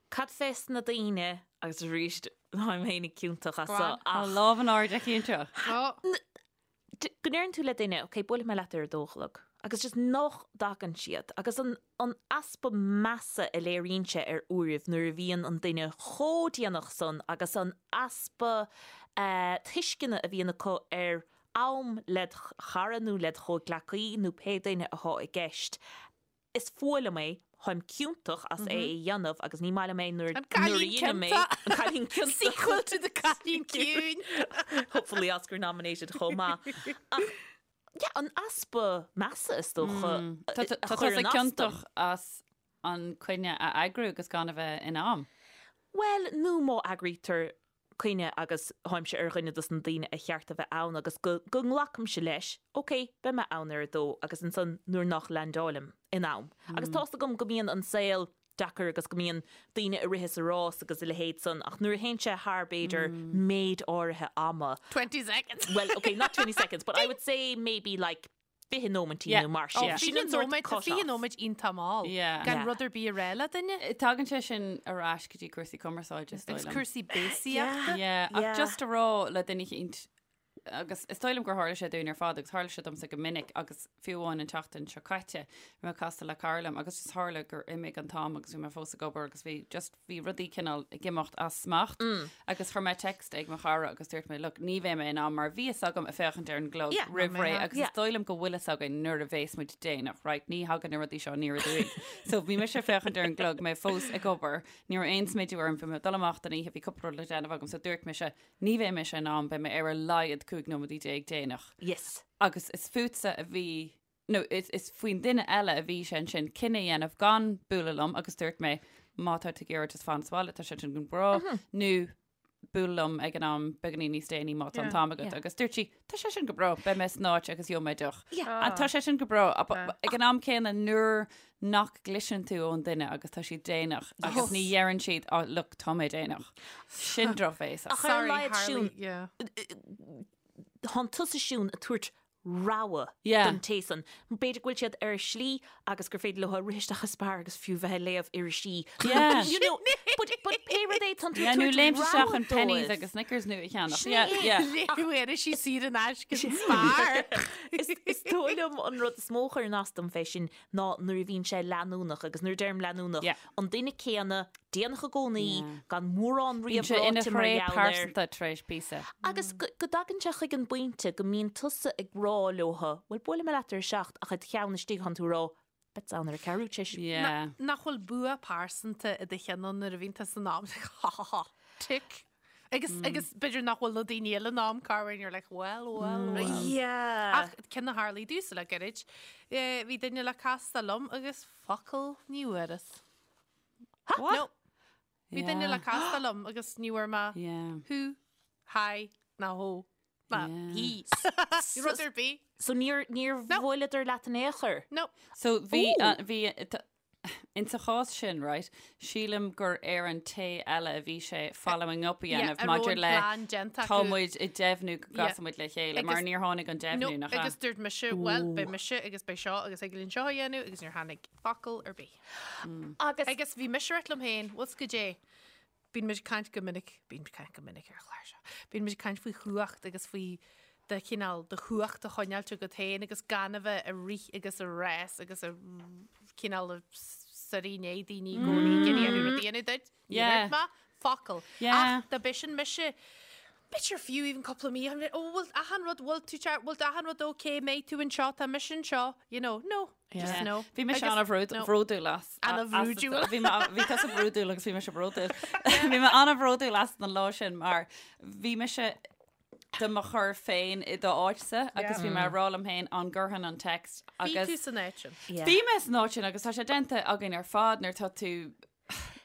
Cad fés na daoine, agus arís táim féinig ciontach as Go seo, on. Tá ach lámh in airde aici anseo. Oh, go ndeireann tú le duine, ok, buailfidh mé leat ar a dó a chlog, agus just nach dtagann siad, agus an an easpa measa a léiríonn sé ar uairibh nuair a bhíonn an duine chomh déanach san agus an easpa tuisceana a bhíonn acu ar am led chara nó led chomhghleacaí nó pé duine atá i gceist. Is fuath liom é, táim ciontach as é a dhéanamh agus ní maith liom é nuair An nuair a cailín dhéanaim é. ciontach. An cailín ciontach. Sequel to the cailín ciúin. Hopefully Oscar nominated chomh maith. Ach yeah, an easpa measa is dócha Tá a tá tusa chuireann as dom. ciontach as an coinne a eagrú agus gan a bheith in am. Bhuel, nó má eagraítear coinne agus táimse ar dhuine dos na daoine a cheart a bheith ann agus go go nglacaimse leis, ok, beidh mé ann ar a dó agus ansan nuair nach leaindeáilim in am. Agus tá's agam go mbíonn an saol deacair agus go mbíonn daoine ag rith is ag rás agus a leithéid san ach nuair a théann sé thar b'fhéidir méid áirithe ama, 20 seconds. well, ok, not 20 seconds, but I would say maybe like 20 nóimintí Yeah. nó mar Oh, sin. Sin 20 an sort nóiméad, tá cut 20 off. nóiméad iontach mall. Yeah. Gan Yeah. rud ar bith a rá le duine. Tagann sé sin ar ais go dtí cúrsaí cumarsáide is dóigh Agus liom. cúrsaí béasaíochta. Yeah, ach Yeah. just a rá le duine eicínt agus is dóigh liom gur tharla sé dúinn ar fad agus tharla sé domsa go minic agus fiú amháin an tseachtain seo caite bhí mé casta le cara liom agus just tharla gur imigh an t-am agus bhí mé fós ag obair agus bhí just bhí rudaí cineál ag imeacht as smacht agus chuir mé text ag mo chara agus dúirt mé look ní bheidh mé in am mar bhí fhios agam ag féachaint ar an gclog Yeah. roimh ré Yeah. agus is dóigh liom go bhfuil fhios againn nuair a bhéas muid déanach right ní thagann na rudaí seo aniar aduaidh. So bhí mise ag féachaint ar an gclog mé fós ag obair ní raibh aon smideadh orm bhí mé ag dul amach don oíche bhí cúpla rud le déanamh agam so dúirt mise Ní bheidh mise in am, beidh mé ar a laghad 15 nóiméad déanach. Yes. Agus is fútsa a bhí, nó is, is faoin duine eile a bhí sé ansin cinneadh a dhéanamh gan bualadh liom agus dúirt mé, má tá tú ag iarraidh just fan sa bhaile, tá sé sin go breá, nó buail liom ag an am beagáinín níos déanaí má tá an t-am agat. Agus dúirt sí, tá sé sin go breá, beidh mé san áit agus gheobhaidh mé deoch. Yeah. And tá sé sin go breá. Ag an am céanna nuair nach gcloiseann tú ón duine agus tá siad déanach agus ní dheireann siad oh look tá mé déanach. Sin drochbhéasach. Ach ar a Sorry, laghad Harley. Siún, Yeah. Tánn tusa Siún ag tabhairt rogha Yeah. don té san. B'fhéidir go bhfuil siad ar a slí agus gur féidir leo rith isteach i Spar agus fiú bheith ag léamh irisí. Yeah. You know, but, but pé rud é tánn tú Yeah, ag nó tabhairt léimt isteach rogha an Penneys dóibh. agus Snickers nua a cheannach. Sin Yeah, é. yeah. Léamh irisí saor in aisce san Spar. Is, is dóigh liom an rud is mó a chuireann as dom fé sin ná nuair a bhíonn sé leanúnach agus nuair a deirim leanúnach, Yeah. an duine céanna, déanach i gcónaí, Yeah. gan mórán Bíonn riamh sé ina ráite mar thréith gheall air. pearsanta tar éis píosa. Agus go go dtagann sé chuig an bpointe go mbíonn tusa ag rá leotha, bhuel buailfidh mé leat ar a seacht ach i do cheann istigh tánn tú ag rá, beidh ann ar a ceathrú tar éis. Yeah. Nach bhfuil bua pearsanta i do cheann ann nuair a bhíonn tú san am, like, ha ha ha, tick. Agus, agus b'fhéidir nach bhfuil na daoine eile in am corruair and you're like, well, well, well. Yeah. Ach ceann a tharlaigh domhsa le gairid, eh, bhí duine le castáil liom agus focal ní bhfuaireas. What? No. Bhí duine le Yeah. castáil liom agus ní bhfuair mé Yeah. hú, hi, ná hó, ná Yeah. hí. Rud ar bith. So níor, níor No. bhuaileadar leat in aon chor? No. So bhí, Ooh. uh, bhí, t- Insa chás sin, right, sílim gur ar an té eile a bhí sé following up a Yeah, dhéanamh a raibh maidir an le plean déanta tá acu. muid ag deimhniú go Yeah. gcasfaidh muid le chéile mar Agus- níor tháinig an No, deimhniú nach ea? agus dúirt mise, well, beidh mise agus beidh seo agus ag linn seo a dhéanamh agus níor tháinig focal ar bith. Agus Agus bhí mise ag rá liom féin, bhfuil 's goidé, bíonn muid ag caint go minic, bíonn muid ag caint go minic ar an chlár seo, bíonn muid ag caint faoi chumhacht agus faoi do chineál do chumhacht a choinneáilt agat féin agus gan a bheith ag rith agus ag rás agus ag cineál ag suirí i ndiaidh daoine i gcónaí ag iarraidh rud a dhéanamh duit. Ní Yeah. dúirt mé focal. Yeah. Ach dá b'shin mise, b'fhéidir fiú even cúpla mí, I'm like, oh, bhfuil achan rud, bhfuil tú ceart, bhfuil achan rud okay, mbeidh tú anseo, tá mise anseo, you know, no, just Yeah. no. Bhí mise Agus- no. an-bhródúil as. An-bhródúil. Bhí mé- bhí tusa bródúil agus bhí mise bródúil. Bhí mé an-bhródúil as an lá sin mar bhí mise do mo chur féin i d'áitse agus bhí mé ag rá liom féin an gcuirfinn an text Bhí tú agus san áit sin. Yeah. Bhí mé san áit sin agus tá sé déanta againn ar fad nuair tá tú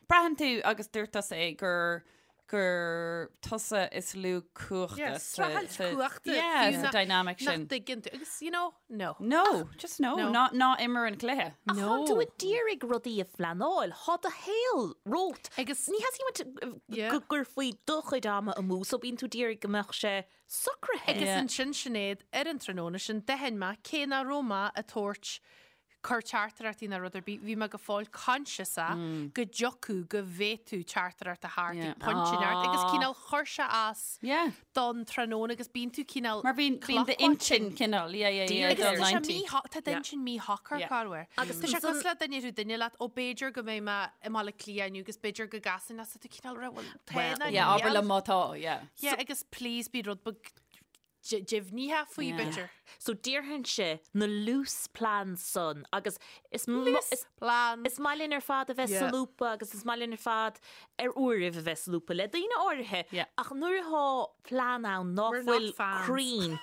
braitheann tú agus dúirt tusa é gur gur tusa is lú cumhachta Yeah, sa streachailt cumhachta, Yeah, fiú sa dynamic nach sin. dtuigeann tú. Agus, you know, no. No, just no, No. ná ná imir an cluiche. Ach tá tú ag d'iarraidh rudaí a phleanáil, tá do shaol romhat. Agus- ní theastaíonn uait Yeah. go gcuirfí do chuid ama amú, so bíonn tú d'iarraidh go mbeadh sé socraithe. Agus Yeah. ansin Sinéad, ar an tráthnóna sin, d'aithin mé cé nach raibh mé ag tabhairt cur teachtaireachtaí ná rud ar bith, bhí mé go fóill conscious go dtiocfadh go bhféadfadh teachtaireacht a theacht ag pointe inteacht agus cineál chuir sé as don tráthnóna agus bíonn tú cineál Mar bíonn bíonn d'intinn cineál, yeah, yeah, yeah, Agus dul tá sé 90. mí- tá d'intinn míshocair corruair. Agus Tá sé ansan- cosúil le duine rú duine leat, ó b'fhéidir go mbeidh mé i mBaile Átha Cliath inniu agus b'fhéidir go gcasfainn leat, tá tú cineál rá, bhuel, tá ná Yeah, abair níl. liom má tá, yeah. Yeah, agus please bí rud beag deimhnithe faoi, b'fhéidir. So déarfainnse na loose plans san agus is Loose plans. Is maith linn ar fad a bheith Yeah. solúbtha agus is maith linn ar fad ar uairibh a bheith solúbtha le daoine áirithe Yeah. ach nuair atá plean ann ná We're not fuil fans. cruinn,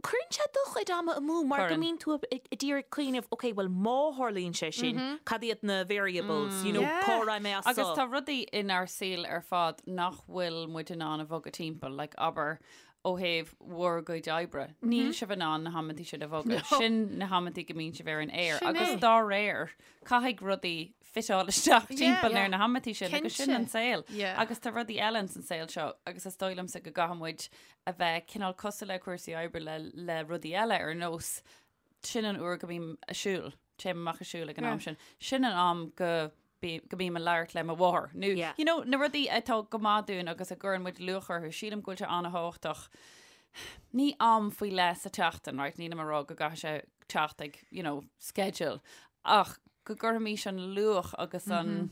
cuireann sé do chuid ama amú mar go Cuireann. mbíonn tú ag d'iarraidh cuimhneamh, ok, well má tharlaíonn sé sin, cad iad na variables, you know, Yeah. cá raibh mé as Agus so? tá rudaí inár saol ar fad nach bhfuil muid in ann a bhogadh timpeall, like abair ó thaobh bhur gcuid oibre. Níl sibh in ann na hamantaí sin a bhogadh. Sin na hamantaí go mbíonn sibh ar an aer. Sin Agus é. dá réir, caithfidh rudaí fiteáil isteach timpeall yeah. ar na hamantaí sin agus sin Cinnte. an saol. Yeah. Agus tá rudaí eile ins an saol seo agus is dóigh liomsa go gcaithfidh muid a bheith cineál cosúil le cúrsaí oibre le, le rudaí eile ar nós sin an uair go mbím ag siúl, téim amach ag siúl ag an am sin. Sin an am go go mbím ag labhairt le mo mháthair. Nó, Yeah. you know, na rudaí atá go maith dúinn agus a gcuireann muid luach orthu, sílim go bhfuil sé an-thábhachtach. Ní am faoi leith sa tseachtain, right? Nílim ag rá go gcaithfidh sé teacht ag, you know, schedule. Ach go gcuirfimis an luach agus an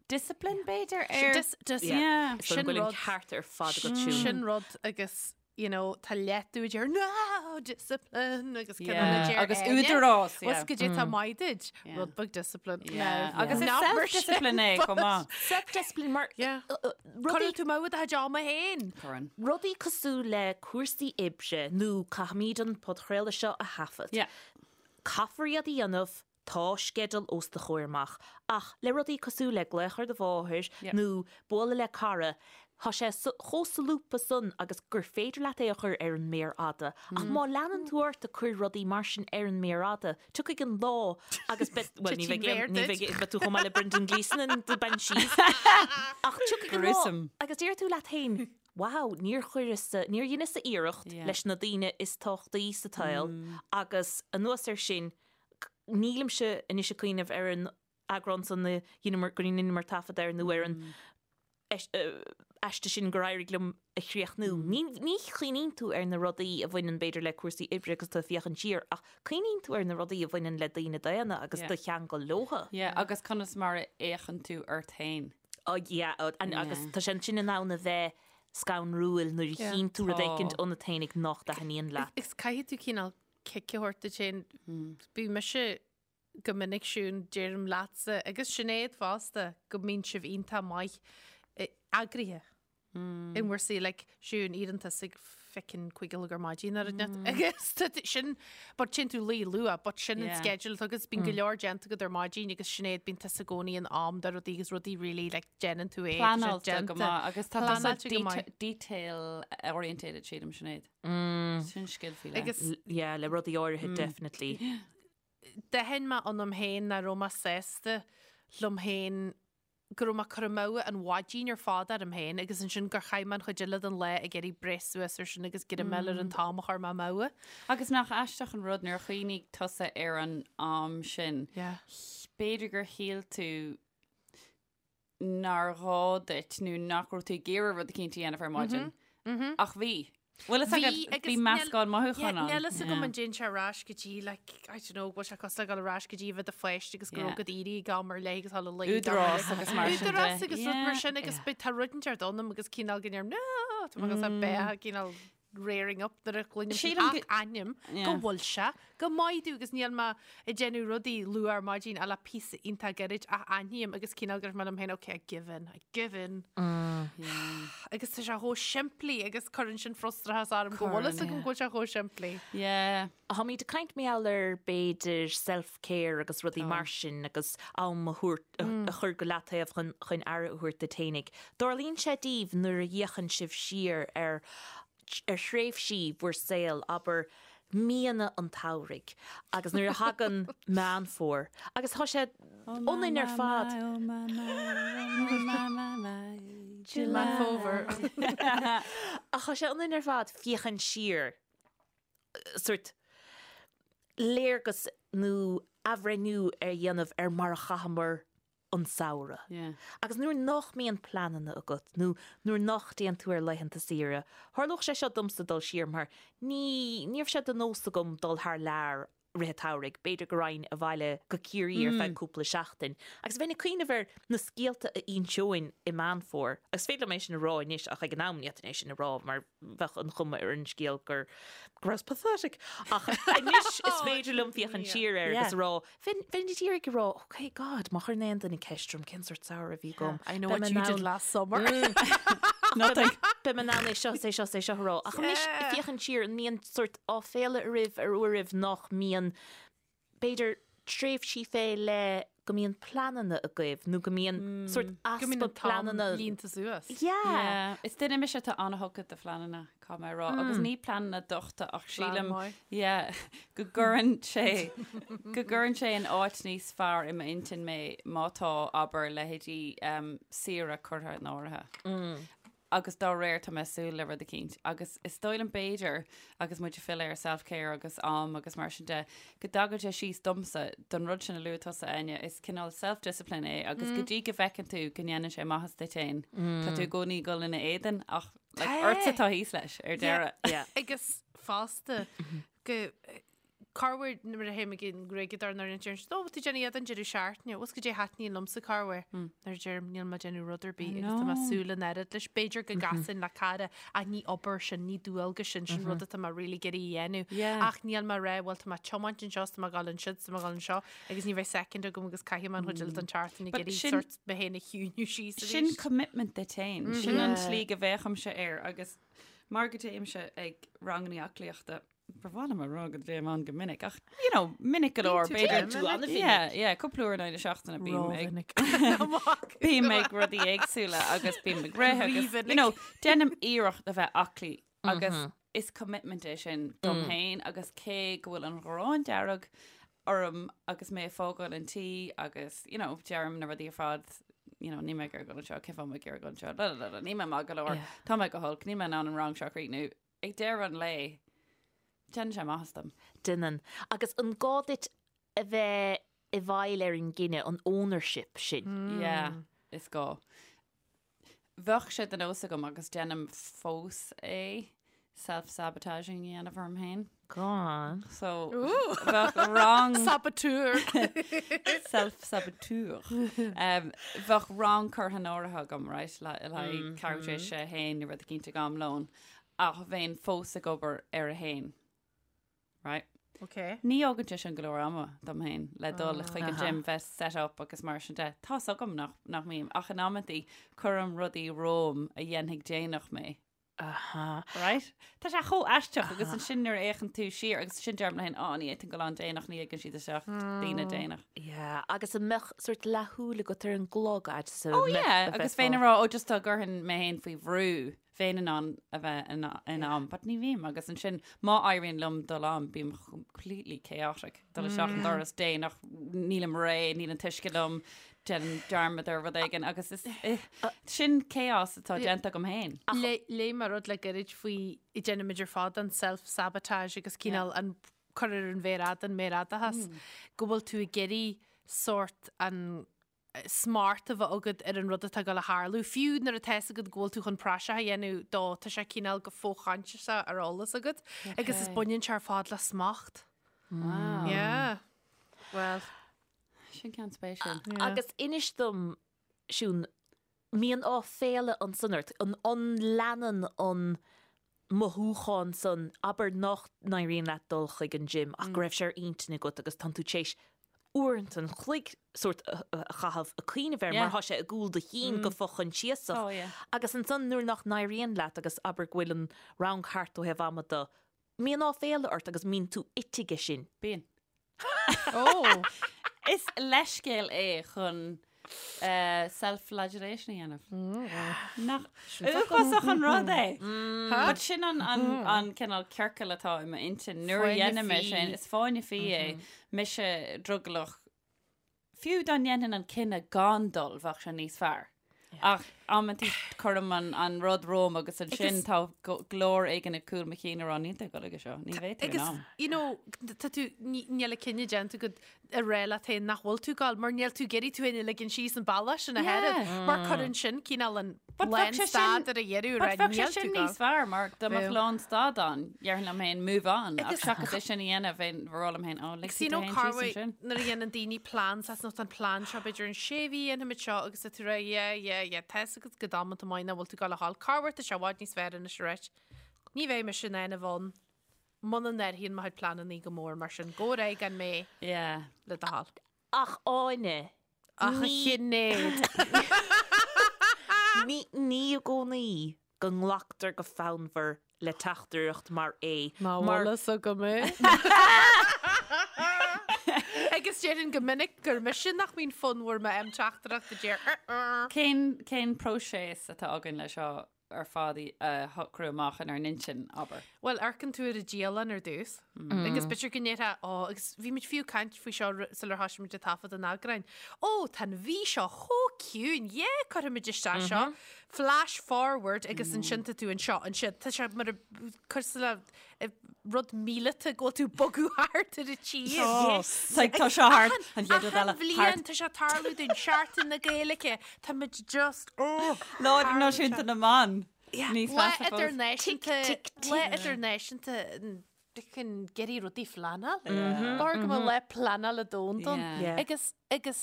discipline b'fhéidir ar... Dis- dis- Yeah. So Sin go bhfuil an rud- ceart ar fad agat Siún. Sin rud agus you know, tá leat tú deir no discipline agus Yeah, yeah. deir agus eile, údarás, yeah. Was go dtí tá maith duit, Yeah. rud beag discipline. Yeah. Now, Agus is not mar sin, self-discipline é but- chomh maith. Self-discipline mar Yeah. rudaí Cuireann tú amú do chuid ama féin. Cuireann. rudaí cosúil le cúrsaí oibre nó caithfimid an podchraoladh seo a thaifead. Yeah. Caithfear iad a dhéanamh, tá sceideal os do chomhair amach, ach le rudaí cosúil le glaoch ar do mháthair Yeah. nó bualadh le cara, tá sé chomh solúbtha san agus gur féidir leat é a chur ar an méar fhada. Ach má leanann tú ort ag cur rudaí mar sin ar an méar fhada, tiocfaidh an lá agus beidh, bhuel, ní Titfidh bheidh aon, méar ní duit. bheidh, beidh tú chomh maith le Brendan Gleeson in The Banshees. Ach tiocfaidh an lá Gruesome. agus déarfaidh tú leat féin, Wow, níor chuireas-sa, níor dheineas-sa iarracht Yeah. leis na daoine is tábhachtaí sa tsaol agus anuas air sin, nílimse anois ag cuimhneamh ar an eagrán san a dheineamar, gur dheineamar taifead air nó ar an aiste sin gur éirigh liom a chríochnú. Ní chuimhníonn tú ar na rudaí a bhaineann b'fhéidir le cúrsaí oibre agus tú ag féachaint siar ach cuimhníonn tú ar na rudaí a bhaineann le daoine daonna agus do cheangal leotha. Yeah, agus conas mar a fhéachann tú ort féin. Oh yeah, agus tá sé ansin in ann a bheith scanrúil nuair a chíonn tú rud éicint ionat féinig nach dtaitníonn leat. Is caithfidh tú cineál cic a thabhairt duit féin. Bhí mise go minic Siún, deirim leatsa agus Sinéad fosta go mbíonn sibh iontach maith eagraithe in bhur saol like Siún éiríonn tusa ag feckin 5 a chlog ar maidin ar an net agus tá tú- sin but téann tú luí luath but sin an Yeah. schedule agus bíonn go leor déanta agat ar maidin agus Sinéad bíonn tusa i gcónaí in am do rudaí agus rudaí really like déanann tú é tá sé Pleanáilte go déanta. maith agus tá tusa Pleanáilte go maith. detail orientated sílim Sinéad. Sin scil faoi leith. Agus Yeah, le rudaí áirithe definitely. D'aithin mé ionam féin nach raibh mé sásta liom féin go raibh mé ag cur amú an mhaidin ar fad orm féin agus ansin gur chaith mé an chuid eile den lá ag iarraidh breith suas air sin agus greim ar an t-am a chuir mé amú. Agus nach aisteach an rud nuair a chuimhnigh tusa ar an am sin, Yeah. b'fhéidir gur shíl tú nár ghá duit nó nach raibh tú ag iarraidh rud eicínt a dhéanamh ar maidin. Ach bhí. Bhfuil fhios agat, Bhí, bhí meascán mothúchán ann. Níl fhios agam an dtéann sé ar ais go dtí, like, I don't know, bhfuil sé cosúil le dul ar ais go dtí a bheith i do pháiste agus go raibh ag éirí ag am ar leith agus dul a luí ag am ar Údarás leith. agus mar sin de. Údarás agus rud mar sin agus tá rud inteacht ionam agus cineál go ndeirim, no, tá mé ag dul beatha cineál. rearing up nuair a chluinim Sílim ach aithním go bhfuil sé go maith domh agus níl mé ag déanamh rudaí luath ar maidin ach le píosa iontach gairid ach aithním agus cineál go raibh mé liom féin ok I give in, I give in. Agus tá sé chomh simplí agus cuireann sin frustrachas orm go bhfuil fhios agam go bhfuil sé chomh simplí. Yeah. Táimid ag caint mar gheall ar b'fhéidir self-care agus rudaí mar sin agus am a thabhairt, a chur go leataobh chun chun aire a thabhairt duit fhéinig. Dtarlaíonn sé daoibh nuair a fhéachann sibh siar ar ar thréimhsí bhur saol, abair míonna an tsamhraidh agus nuair a thagann Meán Fómhair agus tá sé ionainn ar fad. Oh my my, oh my my my, Meán Fómhair. Ach tá sé ionainn ar fad féachaint siar sórt léargas nó athbhreithniú a dhéanamh ar mar a chaitheamar an samhradh. Agus nuair nach mbíonn pleananna agat nó nuair nach dtéann tú ar laethanta saoire, tharlódh sé seo domsa dul siar mar ní, ní raibh sé de nós agam dul thar lear rith an tsamhraidh, b'fhéidir go raghainn abhaile go Ciarraí ar feadh cúpla seachtain. Agus bheinn ag cuimhneamh ar na scéalta a inseoinn i Meán Fómhair, agus féidir liom é sin a rá anois ach ag an am ní fhéadfainn é sin a rá mar bheadh an chuma ar an scéal gur go rabhas pathetic. Ach anois is féidir liom féachaint siar air agus a rá, bheinn bheinn ag iarraidh a rá, ok God, má chuireann aon duine ceist orm cén sórt samhradh a bhí agam, I know what you did last summer. Nothing. Beidh mé in ann é seo, is é seo, is é seo a rá. Ach anois féachaint siar, an mbíonn sórt áiféala oraibh ar uairibh nach mbíonn, b'fhéidir, tréimhsí fé leith go mbíonn pleananna agaibh nó go mbíonn sórt Go mbíonn easpa an t-am pleananna. líonta suas. Yeah. Yeah. Is duine mise atá an-thugtha do phleananna, caithfidh mé a rá. Agus ní pleananna dochta ach sílim, yeah, go gcuireann sé, go gcuireann sé in áit níos fearr i m'intinn mé má tá, abair, leithéidí um, saoire curtha in áirithe. Agus dá réir tá mé ag súil le rud eicínt. Agus is dóigh liom b'fhéidir, agus muid ag filleadh ar self-care agus am agus mar sin de, go dtagann sé síos domsa, don rud sin a luaigh tusa, Áine, is cineál self-discipline é agus go dtí go bhfeiceann tú go ndéanann sé maitheas duit féin, tá tú i gcónaí ag dul ina éadan ach like, ortsa atá thíos leis ar deireadh. Agus fosta go Corruair nuair a théim ag an ngruaigeadóir nuair a deireann siad, Ó, tú déanamh iad an deireadh seachtaine, bhfuil goidé thaitníonn liomsa corruair. Nuair a deirim, níl mé ag déanamh rud ar bith agus tá mé ag súil an oiread leis. B'fhéidir go gcasfainn le cara ach ní obair sin, ní dualgas sin, sin rud atá mé really ag iarraidh a dhéanamh. Ach níl mé ag rá, bhuel tá mé ag tiomáint anseo, is tá mé ag dul ansiúd, is tá mé ag dul anseo agus ní bheidh second agam agus caithfidh mé an chuid eile den tseachtain ag iarraidh sort mé féin a chiúiniú síos arís. Sin commitment duit féin. Sin an tslí go bhféachaimse air agus mar go dtéimse ag ranganna aclaíochta, Ba mhaith liom a rá go dtéim ann go minic ach, you know, minic go leor, Bíonn tú b'fhéidir. minic. Yeah, yeah, cúpla uair in aghaidh na seachtaine bím ag Rómhinic. bím ag rudaí éagsúla agus bím ag rith agus, Rímhinic. you know, déanaim iarracht a bheith aclaí agus is commitment é sin dom féin agus cé go bhfuil an ghráin dearg orm agus mé ag fágáil an tí agus, you know, deirim na rudaí ar fad, you know, níl mé ag iarraidh dul anseo, cén fáth mé ag iarraidh dul anseo, la, la, la, la, níl mé maith go leor, Yeah. tá mé go holc, níl mé in ann an rang seo a chríochnú. Ag deireadh an lae, déanann sé maitheas dom. Déanann. Agus an gá duit a bheith i bhfeighil ar an gcinneadh, an ownership sin? Yeah, is gá. Bheadh sé de nós agam agus déanaim fós é, self-sabotaging a dhéanamh orm féin. Go on. So, bheadh rang... Saboteur! Self-saboteur. Um, bheadh rang curtha in áirithe agam, right, le le haghaidh ceathrú tar éis a haon nó rud eicínt ag am lóin. Ach bheinn fós ag obair ar a haon. Right? Ok. Ní fhágann sé sin go leor ama dom féin le dul chuig an gym, bheith set up agus mar sin de. Tá's agam nach, nach mbím, ach in amantaí cuirim rudaí romham a dhéanfaidh déanach mé. Aha. Right? Tá sé chomh aisteach agus ansin nuair a fhéachann tú siar agus ansin deirim liom féin, á, ní fhéadfainn dul ann déanach, ní ligeann siad isteach daoine déanach. Yeah, agus an mbeadh sort leathshúil agat ar an gclog fhad is a Oh mbeadh, yeah, a agus bheifeá. bheinn ag rá, oh just dá gcuirfinn mé féin faoi bhrú, bheinn in ann a bheith in am, but ní bhím agus ansin má éiríonn liom dul am, bím completely chaotic, dul isteach an doras déanach, nílim réidh, níl an t-uisce liom, déanaim dearmad ar rud éigin agus is sin chaos atá déanta agam féin. Léigh mé rud le gairid faoi déanaimid ar fad an self-sabotage agus cineál an cur ar an mhéar fhada, an méarfhadachas, go bhfuil tú ag iarraidh sórt an smacht a bheith agat ar an rud atá ag dul a tharlú. Fiú nuair atá fhios agat go bhfuil tú chun praiseach a dhéanamh dó, tá sé cineál go fo-choinsiasach ar eolas agat. Agus is baineann sé ar fad le smacht. Wow. Yeah. Well. Sin ceann spéisiúil. Yeah. Agus inis dom, Siún, mbíonn áiféala ansan ort, an, an leanann an. mothúchán san, abair nach n-éiríonn leat dul chuig an gym ach go raibh sé ar intinn agat agus tánn tú tar éis uaireanta an chloig sórt a chaitheamh ag cuimhneamh air mar tá sé i gcúl do chinn go fo-choinsiasach. Agus ansan nuair nach n-éiríonn leat agus abair go bhfuil an rang thart ó thaobh ama de, mbíonn áiféala ort agus mbíonn tú ite aige sin. Bíonn. Ó! Is leithscéal é chun self-flagellation a dhéanamh. Nach uafásach an rud é? But sin an an cineál ciorcal atá i m'intinn nuair a dhéanaim é sin, is fáinne fí é, mise drogallach Fiú dá ndéanfainn an cinneadh gan dul, bheadh sé níos fearr. Ach amantaí cuirim an rud romham agus ansin tá glór éigin ag cúl mo chinn ag rá níl tú ag dul aige seo, ní bheidh tú in Agus, am. you know, tá tú, níl an cinneadh déanta agat a rá leat féin nach bhfuil tú ag dul, mar níl tú ag iarraidh tú féin a ligean síos an bealach sin ach oiread, mar cuireann sin cineál an But bheadh sé sin- lánstad ar a dheireadh, But right, bheadh sé níl tú sin ag dul. níos fearr mar dá mbeadh Bheadh. lánstad ann, déarfainn liom féin move on, ach Agus- seachas é sin a dhéanamh, bheinn ag rá liom féin, oh, lig Agus you tú know féin síos Carway, ansin. nuair a dhéanann daoine plean, saghas nó tá an plean seo b'fhéidir in sé mhí dhéanfaimid seo agus tá tú ag rá yeah, yeah, yeah, tá fhios agat go damanta maith nach bhfuil tú ag dul a ghabháil. Corruair tá sé i bhfad níos fearr anois a ráit. Ní bheidh mise in ann a bheith ann muna n-athraíonn mo chuid pleananna go mór mar sin. Gabh ar aghaidh gan mé Yeah. le do thoil. Ach Áine, Ach a Shinéad. Ní ní i gcónaí go nglactar go fonnmhar le teachtaireacht mar é. Ná Mar bhfuil fhios agam é. Agus déarfainn go minic gur mise nach mbíonn fonnmhar má fhaighim teachtaireacht a deir "Uh-uh". Cén cén próiseas atá againn le seo ar fad a shocrú amach inár n-intinn, abair. Bhuel, amharcann tú ar an dialann ar dtús. Agus b'fhéidir go ndéarfá, ó, agus bhí muid fiú ag caint faoi seo sular thosaigh muid ag taifead an eagráin. Ó, tá an mhí seo chomh ciúin, yeah, cuirfimid isteach seo. Flash forward agus ansin tá tú anseo, ansin. Tá sé mar a cosúil le rud míleata go bhfuil tú ag bogadh thart ar an tír. Yes. Like, tá seo thart, an chéad rud eile, Achan bhliain thart. tá sé ag tarlú dúinn, Seachtain na Gaeilge, tá muid just, oh. Lá Idirnáisiúnta na mBan. Níos Lá measa fós. idirnáisiúnta, Tic, tic, tic. lá idirnáisiúnta chun iarraidh rudaí a phleanáil. B'fhearr go mbeadh lá pleanála domhanda ann. Yeah. Yeah. Agus agus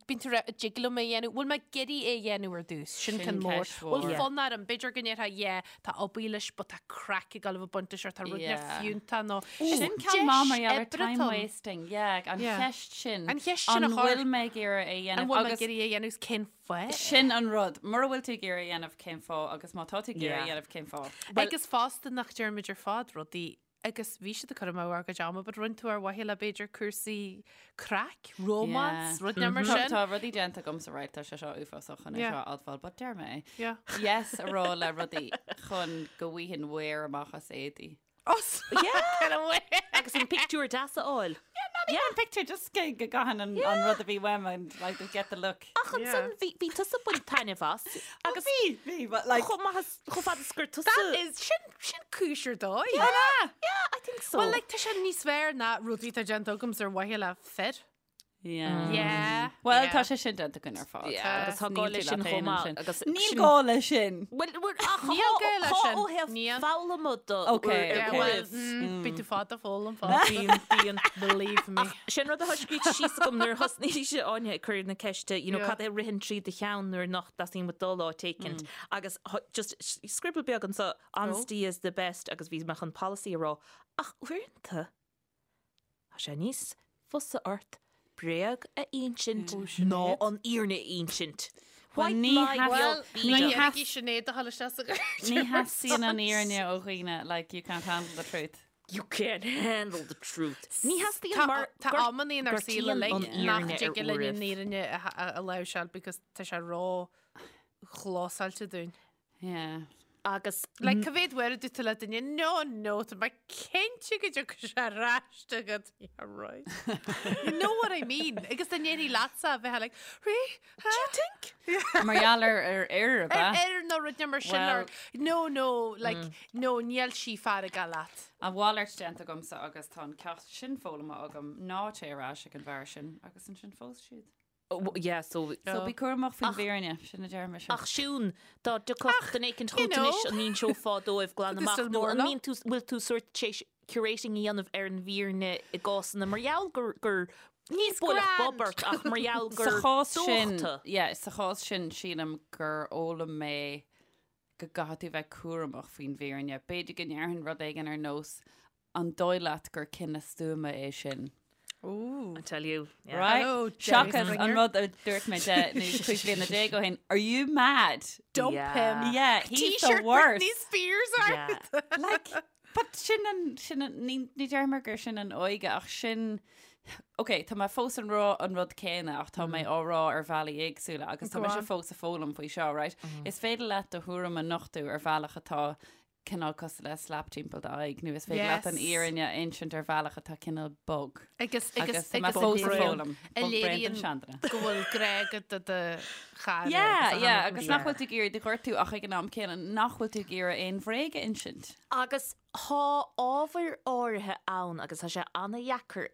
bíonn tú ag rá, an dtig liom é a dhéanamh, bhfuil mé ag iarraidh é a dhéanamh ar dtús, sin Sin ceann mór. ceist mhór. Bhfuil fonn orm, b'fhéidir go ndéarfá, yeah, tá obair leis, but tá craic ag dul a bheith ag baint leis or tá rud yeah. Yeah. fiúntach nó Sin ceann maith mar gheall ar oibre time atá ann. wasting. Yeah, an Yeah. cheist sin. An cheist sin a An chur. bhfuil mé ag iarraidh é a dhéanamh? An bhfuil mé ag Agus iarraidh é a dhéanamh is cén fáth? sin an rud. Mura bhfuil tú ag iarraidh é a dhéanamh, cén fáth? Agus má tá tú ag iarraidh é a Yeah. dhéanamh, cén fáth? Agus fosta nach deirimid ar fad rudaí Agus bhí siad ag cur amú ár gcuid ama, but rinne tú ar mhaithe le b'fhéidir cúrsaí craic, romance, rud mar Tá sin. tá rudaí déanta agamsa, right, tá sé seo uafásach chun é Yeah. seo a admháil, but deir mé é. Yeah. Yes a rá le rudaí chun go bhfaighinn wear amach as éadaí. Oh, yeah. Agus an pictiúr deas a fháil. Yeah, an picture just go go gcaithfinn an an rud a bhí uaim and like to get the look. Ach ansan bhí bhí tusa ag baint taitneamh as agus Bhí, bhí, but like chomh maith as chomh fada is gur tusa. That is, sin, sin cúis ar dóigh. Yeah, I think so. Well, like, tá sé níos fearr ná rudaí atá déanta agamsa ar mhaithe le fir. Yeah. Yeah. Well, yeah. tá sé sin déanta againn ar fad. Yeah, agus tá gá leis sin chomh maith, agus Níl sin- gá leis sin. Well, well, ach Níl gá leis sin. ó thaobh Níl. foghlama de. Okay, Yeah, okay. well, bíonn tú fada ag foghlaim fada. Bíonn, bíonn. Believe me. Sin rud atá scríte síos agam nuair a thosnaigh sé Áine ag cur na ceiste, you know, Yeah. cad é a ritheann trí do cheann nuair nach dteastaíonn uait dul áit éicint. Agus just scribble beag anseo, honesty is the best agus bhí mé chun policy a rá. Ach uaireanta, tá sé níos fusa ort bréag a insint ná an fhírinne a insint. White ní lie, Well, beag ní bídeach. dhéanfaidh Sinéad a dhul isteach sa ghairdín. Ní theastaíonn an fhírinne ó dhaoine, like you can't handle the truth. You can't handle the truth. Ní theastaíonn Tá mar tá amanna inár saol gortaíonn uilig an nach fhírinne ar dtig linn an uairibh. fhírinne a láimhseáil because tá sé ró-chlósáilte dúinn. Yeah. Agus Like, cá mhéad uair a dúirt tú le duine, no, no, tá mé cinnte go dtiocfaidh sé ar ais chugat. Yeah, right. You know what I mean? Agus dá ndéarfaí leatsa a bheith like, rí, do you think? Mar gheall ar ar fhir, ab Ar ea? ar nó rud mar sin Well- or, no, no, like, no, níl sí feargach leat. A mhalairt déanta agamsa agus tá an ceacht sin foghlamtha agam, ná téigh ar ais ag an bhfear sin agus ansin phós siad. Yeah, so. So bí cúramach faoin bhfírinne, sin a deir mise. Ach Siún, dá dtiocfadh duine éicint you chugat know. anois an inseofá dóibh glan But amach still nó more an ná. mbíonn tú, bhfuil tú sórt tar éis curating a dhéanamh ar an bhfírinne i gcásanna mar gheall gur, gur, ní bualadh grand. bob ort ach mar gheall Sa gur chás sin, dóchta. yeah, sa chás sin sílim gur fhoghlaim mé. go gcaithfidh tú bheith cúramach faoin bhfírinne. B'fhéidir go ndéarfainn rud éigin ar nós an dóigh leat gur cinneadh stuama é sin? Ooh. I tell you. Yeah. Right? Hello, Jerry Seachas Springer. an rud a dúirt mé 10 nó 15 bliana ó shin, are you mad? Dump Yeah. him. Yeah, he's the T-shirt worst. Britney Spears Yeah. ort. Like, but sin an, sin an, ní, ní deirim gur sin an óige ach sin, Ok, tá mé fós ag rá an rud céanna ach tá mé á rá ar bhealaí éagsúla agus tá Go mise on. fós ag foghlaim faoi seo, right? Is féidir leat do thuairim a nochtadh ar bhealach atá cineál cosúil le slap timpeall d'aghaidh nó is féidir leat an Yes. fhírinne a insint ar bhealach atá cineál bog. Agus agus Agus tá mé agus fós ag a foghlaim. a Bog braon don léiríonn seanduine. go bhfuil grá agat do do chara. Yeah, agus a yeah, tháinig agus mar nach bhfuil tú ag iarraidh do ghortú ach ag an am céanna nach bhfuil tú ag iarraidh aon bhréag a insint. Agus Tá ábhair áirithe ann agus tá sé ana-dheacair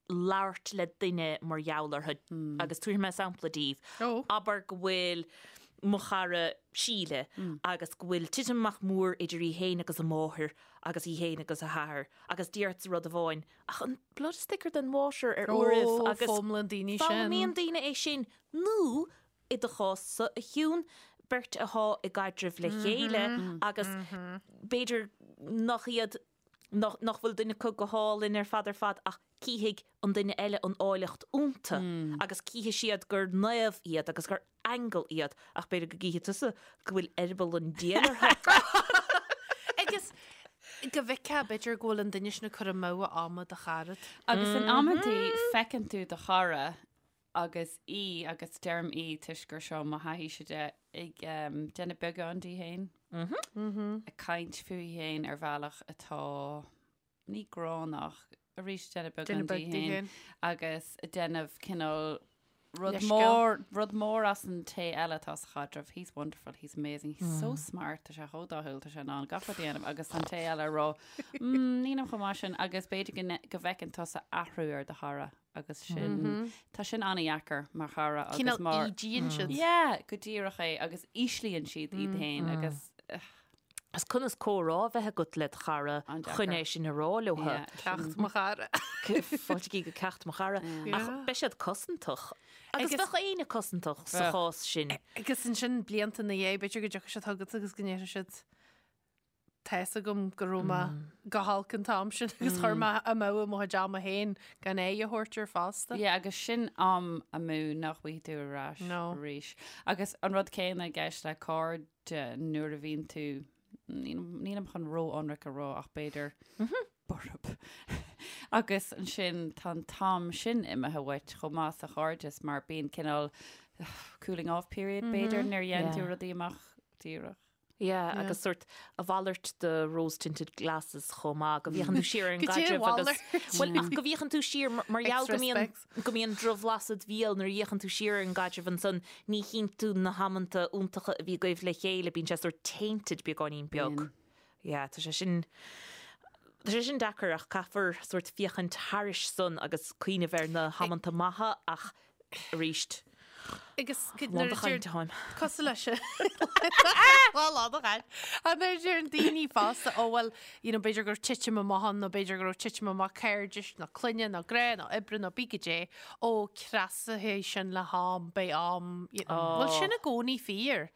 labhairt le duine mar gheall orthu agus tabharfaidh mé sampla daoibh. Abair go bhfuil mo chara Síle agus go bhfuil titim amach mór idir í féin agus a máthair agus í féin agus a hathair agus déarfadsa rud amháin ach an blood is thicker than water ar uairibh agus foghlaimíonn daoine sin. Foghlaimíonn daoine é sin nó i do chás-sa, a Shiún, beirt athá i gcaidreamh le chéile agus b'fhéidir nach iad, nach bhfuil duine acu go hálainn ar fad ar fad ach cífidh an duine eile an áilleacht iontu agus cífidh siad gur naomh iad agus gur aingeal iad ach b'fhéidir go gcífidh tusa go bhfuil eireaball an diabhail orthu. Agus go bhfeicfeá b'fhéidir go bhfuil an duine sin ag cur amú a ama do charad. Agus in amantaí feiceann tú do chara agus í, agus deirim í toisc gur seo mo thaithíse de, ag déanamh beagán di féin, ag caint fúithi féin ar bhealach atá ní gránna ach arís déanamh beagán di féin agus ag déanamh cineál rud mór, rud mór as an té eile atá sa chaidreamh, he's wonderful, he's amazing, he's so smart, tá sé chomh dathúil, tá sé in ann gach rud a dhéanamh agus an té eile ag rá, mm, nílim chomh maith sin agus b'fhéidir go bhfeiceann tusa athrú ar do chara. agus sin, tá sin an-dheacair mar chara agus Cineál mar. ídíonn siad. Yeah, go díreach é agus íslíonn siad iad féin agus Is conas comhrá a bheith agat le do chara An-deacair. chun é sin a rá leo. Yeah, Ceacht mo chara. Fáiltigí go ceacht mo chara. Ach beidh siad cosantach. Agus Agus- bheadh éinne cosantach sa Bheadh. chás sin. Agus ansin blianta ina dhiaidh, b'fhéidir go dtiocfaidh siad chugat agus go ndéarfaidh siad Tá's agam go raibh mé go holc an t-am sin agus chuir mé amú mo chuid ama féin gan aghaidh a thabhairt air fosta. Yeah, agus sin am amú nach bhfaighidh tú ar ais No. arís. Agus an rud céanna i gceist le cairde nuair a bhíonn tú, nílim chun ró-ionraic a rá ach b'fhéidir borb. Agus ansin tá an t-am sin imithe uait chomh maith sa chairdeas mar bíonn cineál cooling off period b'fhéidir nuair a dhéanann tú rudaí amach díreach. Yeah, Yeah. agus sort a mhalairt de rose tinted glasses chomh maith, go bhféachann tú siar ar an Go dtí a gcaidreamh agus mhalairt. Bhuel, ach go bhféachann tú siar mar mar gheall go Extra mbíonn specs. go mbíonn drochbhlas id bhéal nuair a fhéachann tú siar ar an gcaidreamh ansan ní chíonn tú na hamanta iontacha a bhí agaibh le chéile, bíonn sé sort tainted beagáinín beag. Bíonn. Yeah, tá sé sin tá sé sin deacair ach caithfear sort féachaint thairis san agus cuimhneamh ar na hamanta maithe ach arís. Agus Lán de chaint atáim. Cosúil leis sin. Lá lán de chaint. An nuair a deireann daoine fosta, ó bhuel, you know, b'fhéidir go raibh titim amach ann nó b'fhéidir go raibh titim amach cairdis nó clainne nó grá nó oibre nó bí goidé, ó cneasóidh sin le ham, beidh am, you know. Bhfuil sin i gcónaí fíor?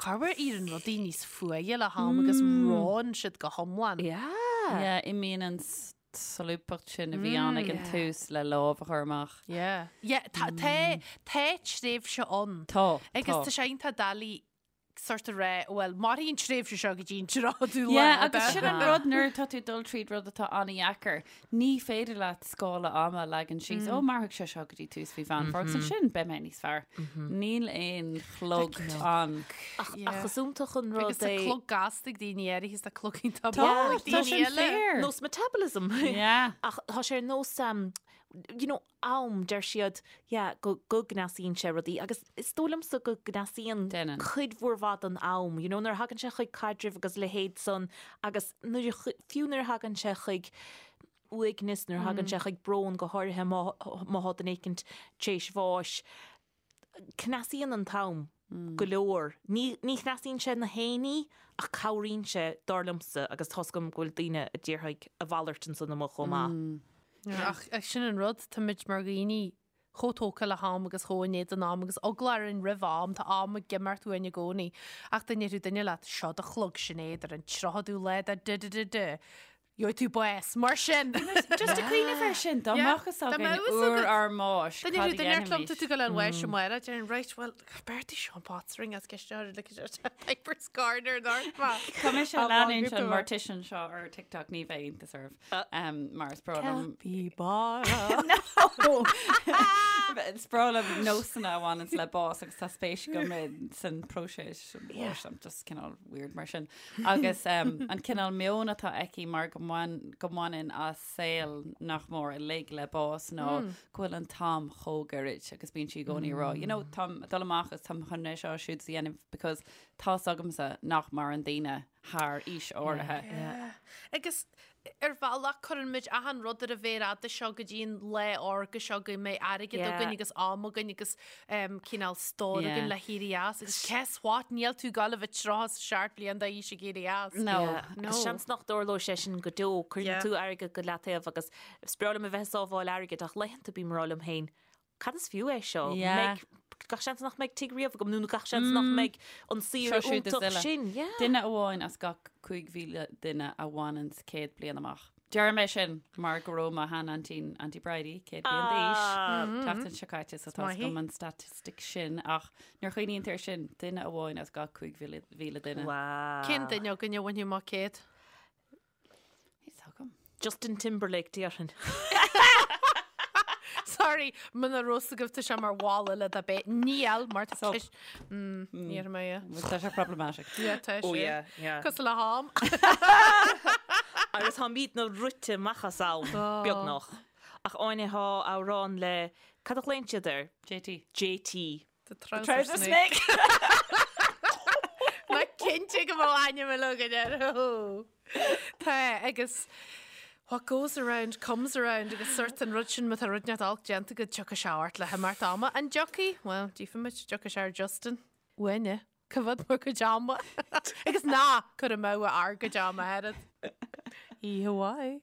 Corruair éiríonn rudaí níos fuaithe le ham agus reonn siad go hiomlán. Yeah. Yeah, imíonn an solúbthacht sin a bhí ann ag an tús le lámh a chur amach. Yeah. Yeah, tá, tá, tá tréimhse ann. Tá, Agus tá. tá sé iontach doiligh sort a rá, bhuel, mairfidh an tréimhse seo go dtí an tríochadú lá. Yeah, agus sin an rud nuair atá tú ag dul tríd rud atá an-dheacair, ní féidir leat scála ama a leagan síos, ó mairfidh sé seo go dtí tús mhí Mheán Fómhair agus ansin beidh mé níos fearr. Níl aon chlog ann. Ach, ach is iontach an rud Agus tá é. clog gasta ag daoine áirithe is tá clog iontach Tá, mall ag tá daoine sin eile. fíor. Nós metabolism. Yeah. Ach tá sé ar nós, um, you know, am, deir siad, yeah, go, go gcneasaíonn sé rudaí agus is dóigh liomsa go gcneasaíonn Déanann. cuid mhór mhaith den am, you know, nuair a thagann sé chuig caidrimh agus leithéid san agus nuair a chu- fiú nuair a thagann sé chuig uaigneas, nuair a thagann sé chuig brón go háirithe má, má thá duine éicint tar éis bháis, cneasaíonn an t-am go leor. Ní ní chneasaíonn sé na haon ní ach cabhraíonn sé, dar liomsa, agus tá's agam go bhfuil daoine a déarfaidh a mhalairt ansan amuigh chomh maith. Ach sin an rud, táimid mar dhaoine chomh tógtha le ham agus chomh in éadan am agus eagla orainn roimh am, tá am ag imeacht uainn i gcónaí. Ach dá ndéarfadh duine leat, seo do chlog Sinéad ar an 30ú lá de de de de de, gheobhaidh tú bás, mar sin! Just ag cuimhneamh air sin, dá mbeadh fhios againn uair ár mbáis, cad a dhéanfaimis? Dá ndéarfadh duine liom, tá tú ag dul chun bháis amárach, déarfainn, right, well, b'fhearr Sean Potts ring as ceist ar like Piper's Corner Tá mise ag leanúint an mortician seo ar TikTok ní bheidh iontas oraibh. Mar is breá liom. Capybara. No! Is breá liom nósanna a bhaineanns le bás agus tá spéis agam san próiseas báis, I'm just cineál weird mar sin. Agus um, an cineál meon atá aici mar go mbain- go mbaineann a saol nach mór uilig le bás ná go bhfuil an t-am chomh gairid agus bíonn sí i gcónaí ag rá, you know, táim ag dul amach agus táim chun é seo siúd a dhéanamh because tá's agamsa nach maireann daoine thar aois áirithe. Yeah. Agus ar bhealach cuireann muid achan rud ar an mhéar fhada seo go dtí an lá órga seo go mbeidh airgead againn agus am againn agus um, cineál stór againn le héirí as agus guess what níl tú ag gabháil a bheith 37 bliain d'aois ag éirí as. No. No. Agus seans nach dtarlóidh sé sin go deo, cuireann Yeah. tú airgead go leataobh agus is breá liom a bheith ag sábháil airgid ach laethanta bím ag rá liom féin, Cad is fiú é seo? Yeah. Mbeidh, gach seans nach mbeidh tigh riamh agam nó gach seans nach mbeidh an saoire Seo siúd is iontach eile. sin. Yeah. Duine amháin as gach 5,000 duine a bhaineanns 100 bliain amach. Deirim é sin mar go raibh mo shean-aintín, Auntie Bridie, 100 bliain d'aois Ah. tseachtain seo caite, so tá maith í. agam an staitistic sin ach nuair a chuimhníonn tú air sin, duine amháin as gach 5,000 duine. Wow. Cén duine againn a bhainfidh amach 100? Níl agam. Justin Timberlake déarfainn. Sorry, muna raibh fhios agaibh tá sé mar mhala le do bheith. Níl, mar tá Sub. ceist. Mm, ní raibh mé, yeah. Tá sé problematic. Yeah, tá Oh sé. yeah, yeah. Cosúil le ham. Agus táimidne rite amach as am, beagnach. Ach Áine thá amhrán le, cad a ghlaonn siad air? JT. JT. The trouser Trouser snake. snake. Ná cinnte go bhfuil ainm eile againn air. Tá, agus what goes around comes around agus sort an rud sin má tá rud inteacht olc déanta agat tiocfaidh sé ort le himeacht ama. An dtiocfaidh? Bhuel, tchífimid, dtiocfaidh sé ar Justin. Uainne. Coimhéad bhur gcuid ama. Agus ná cuir amú ár gcuid ama oiread. Oíche mhaith.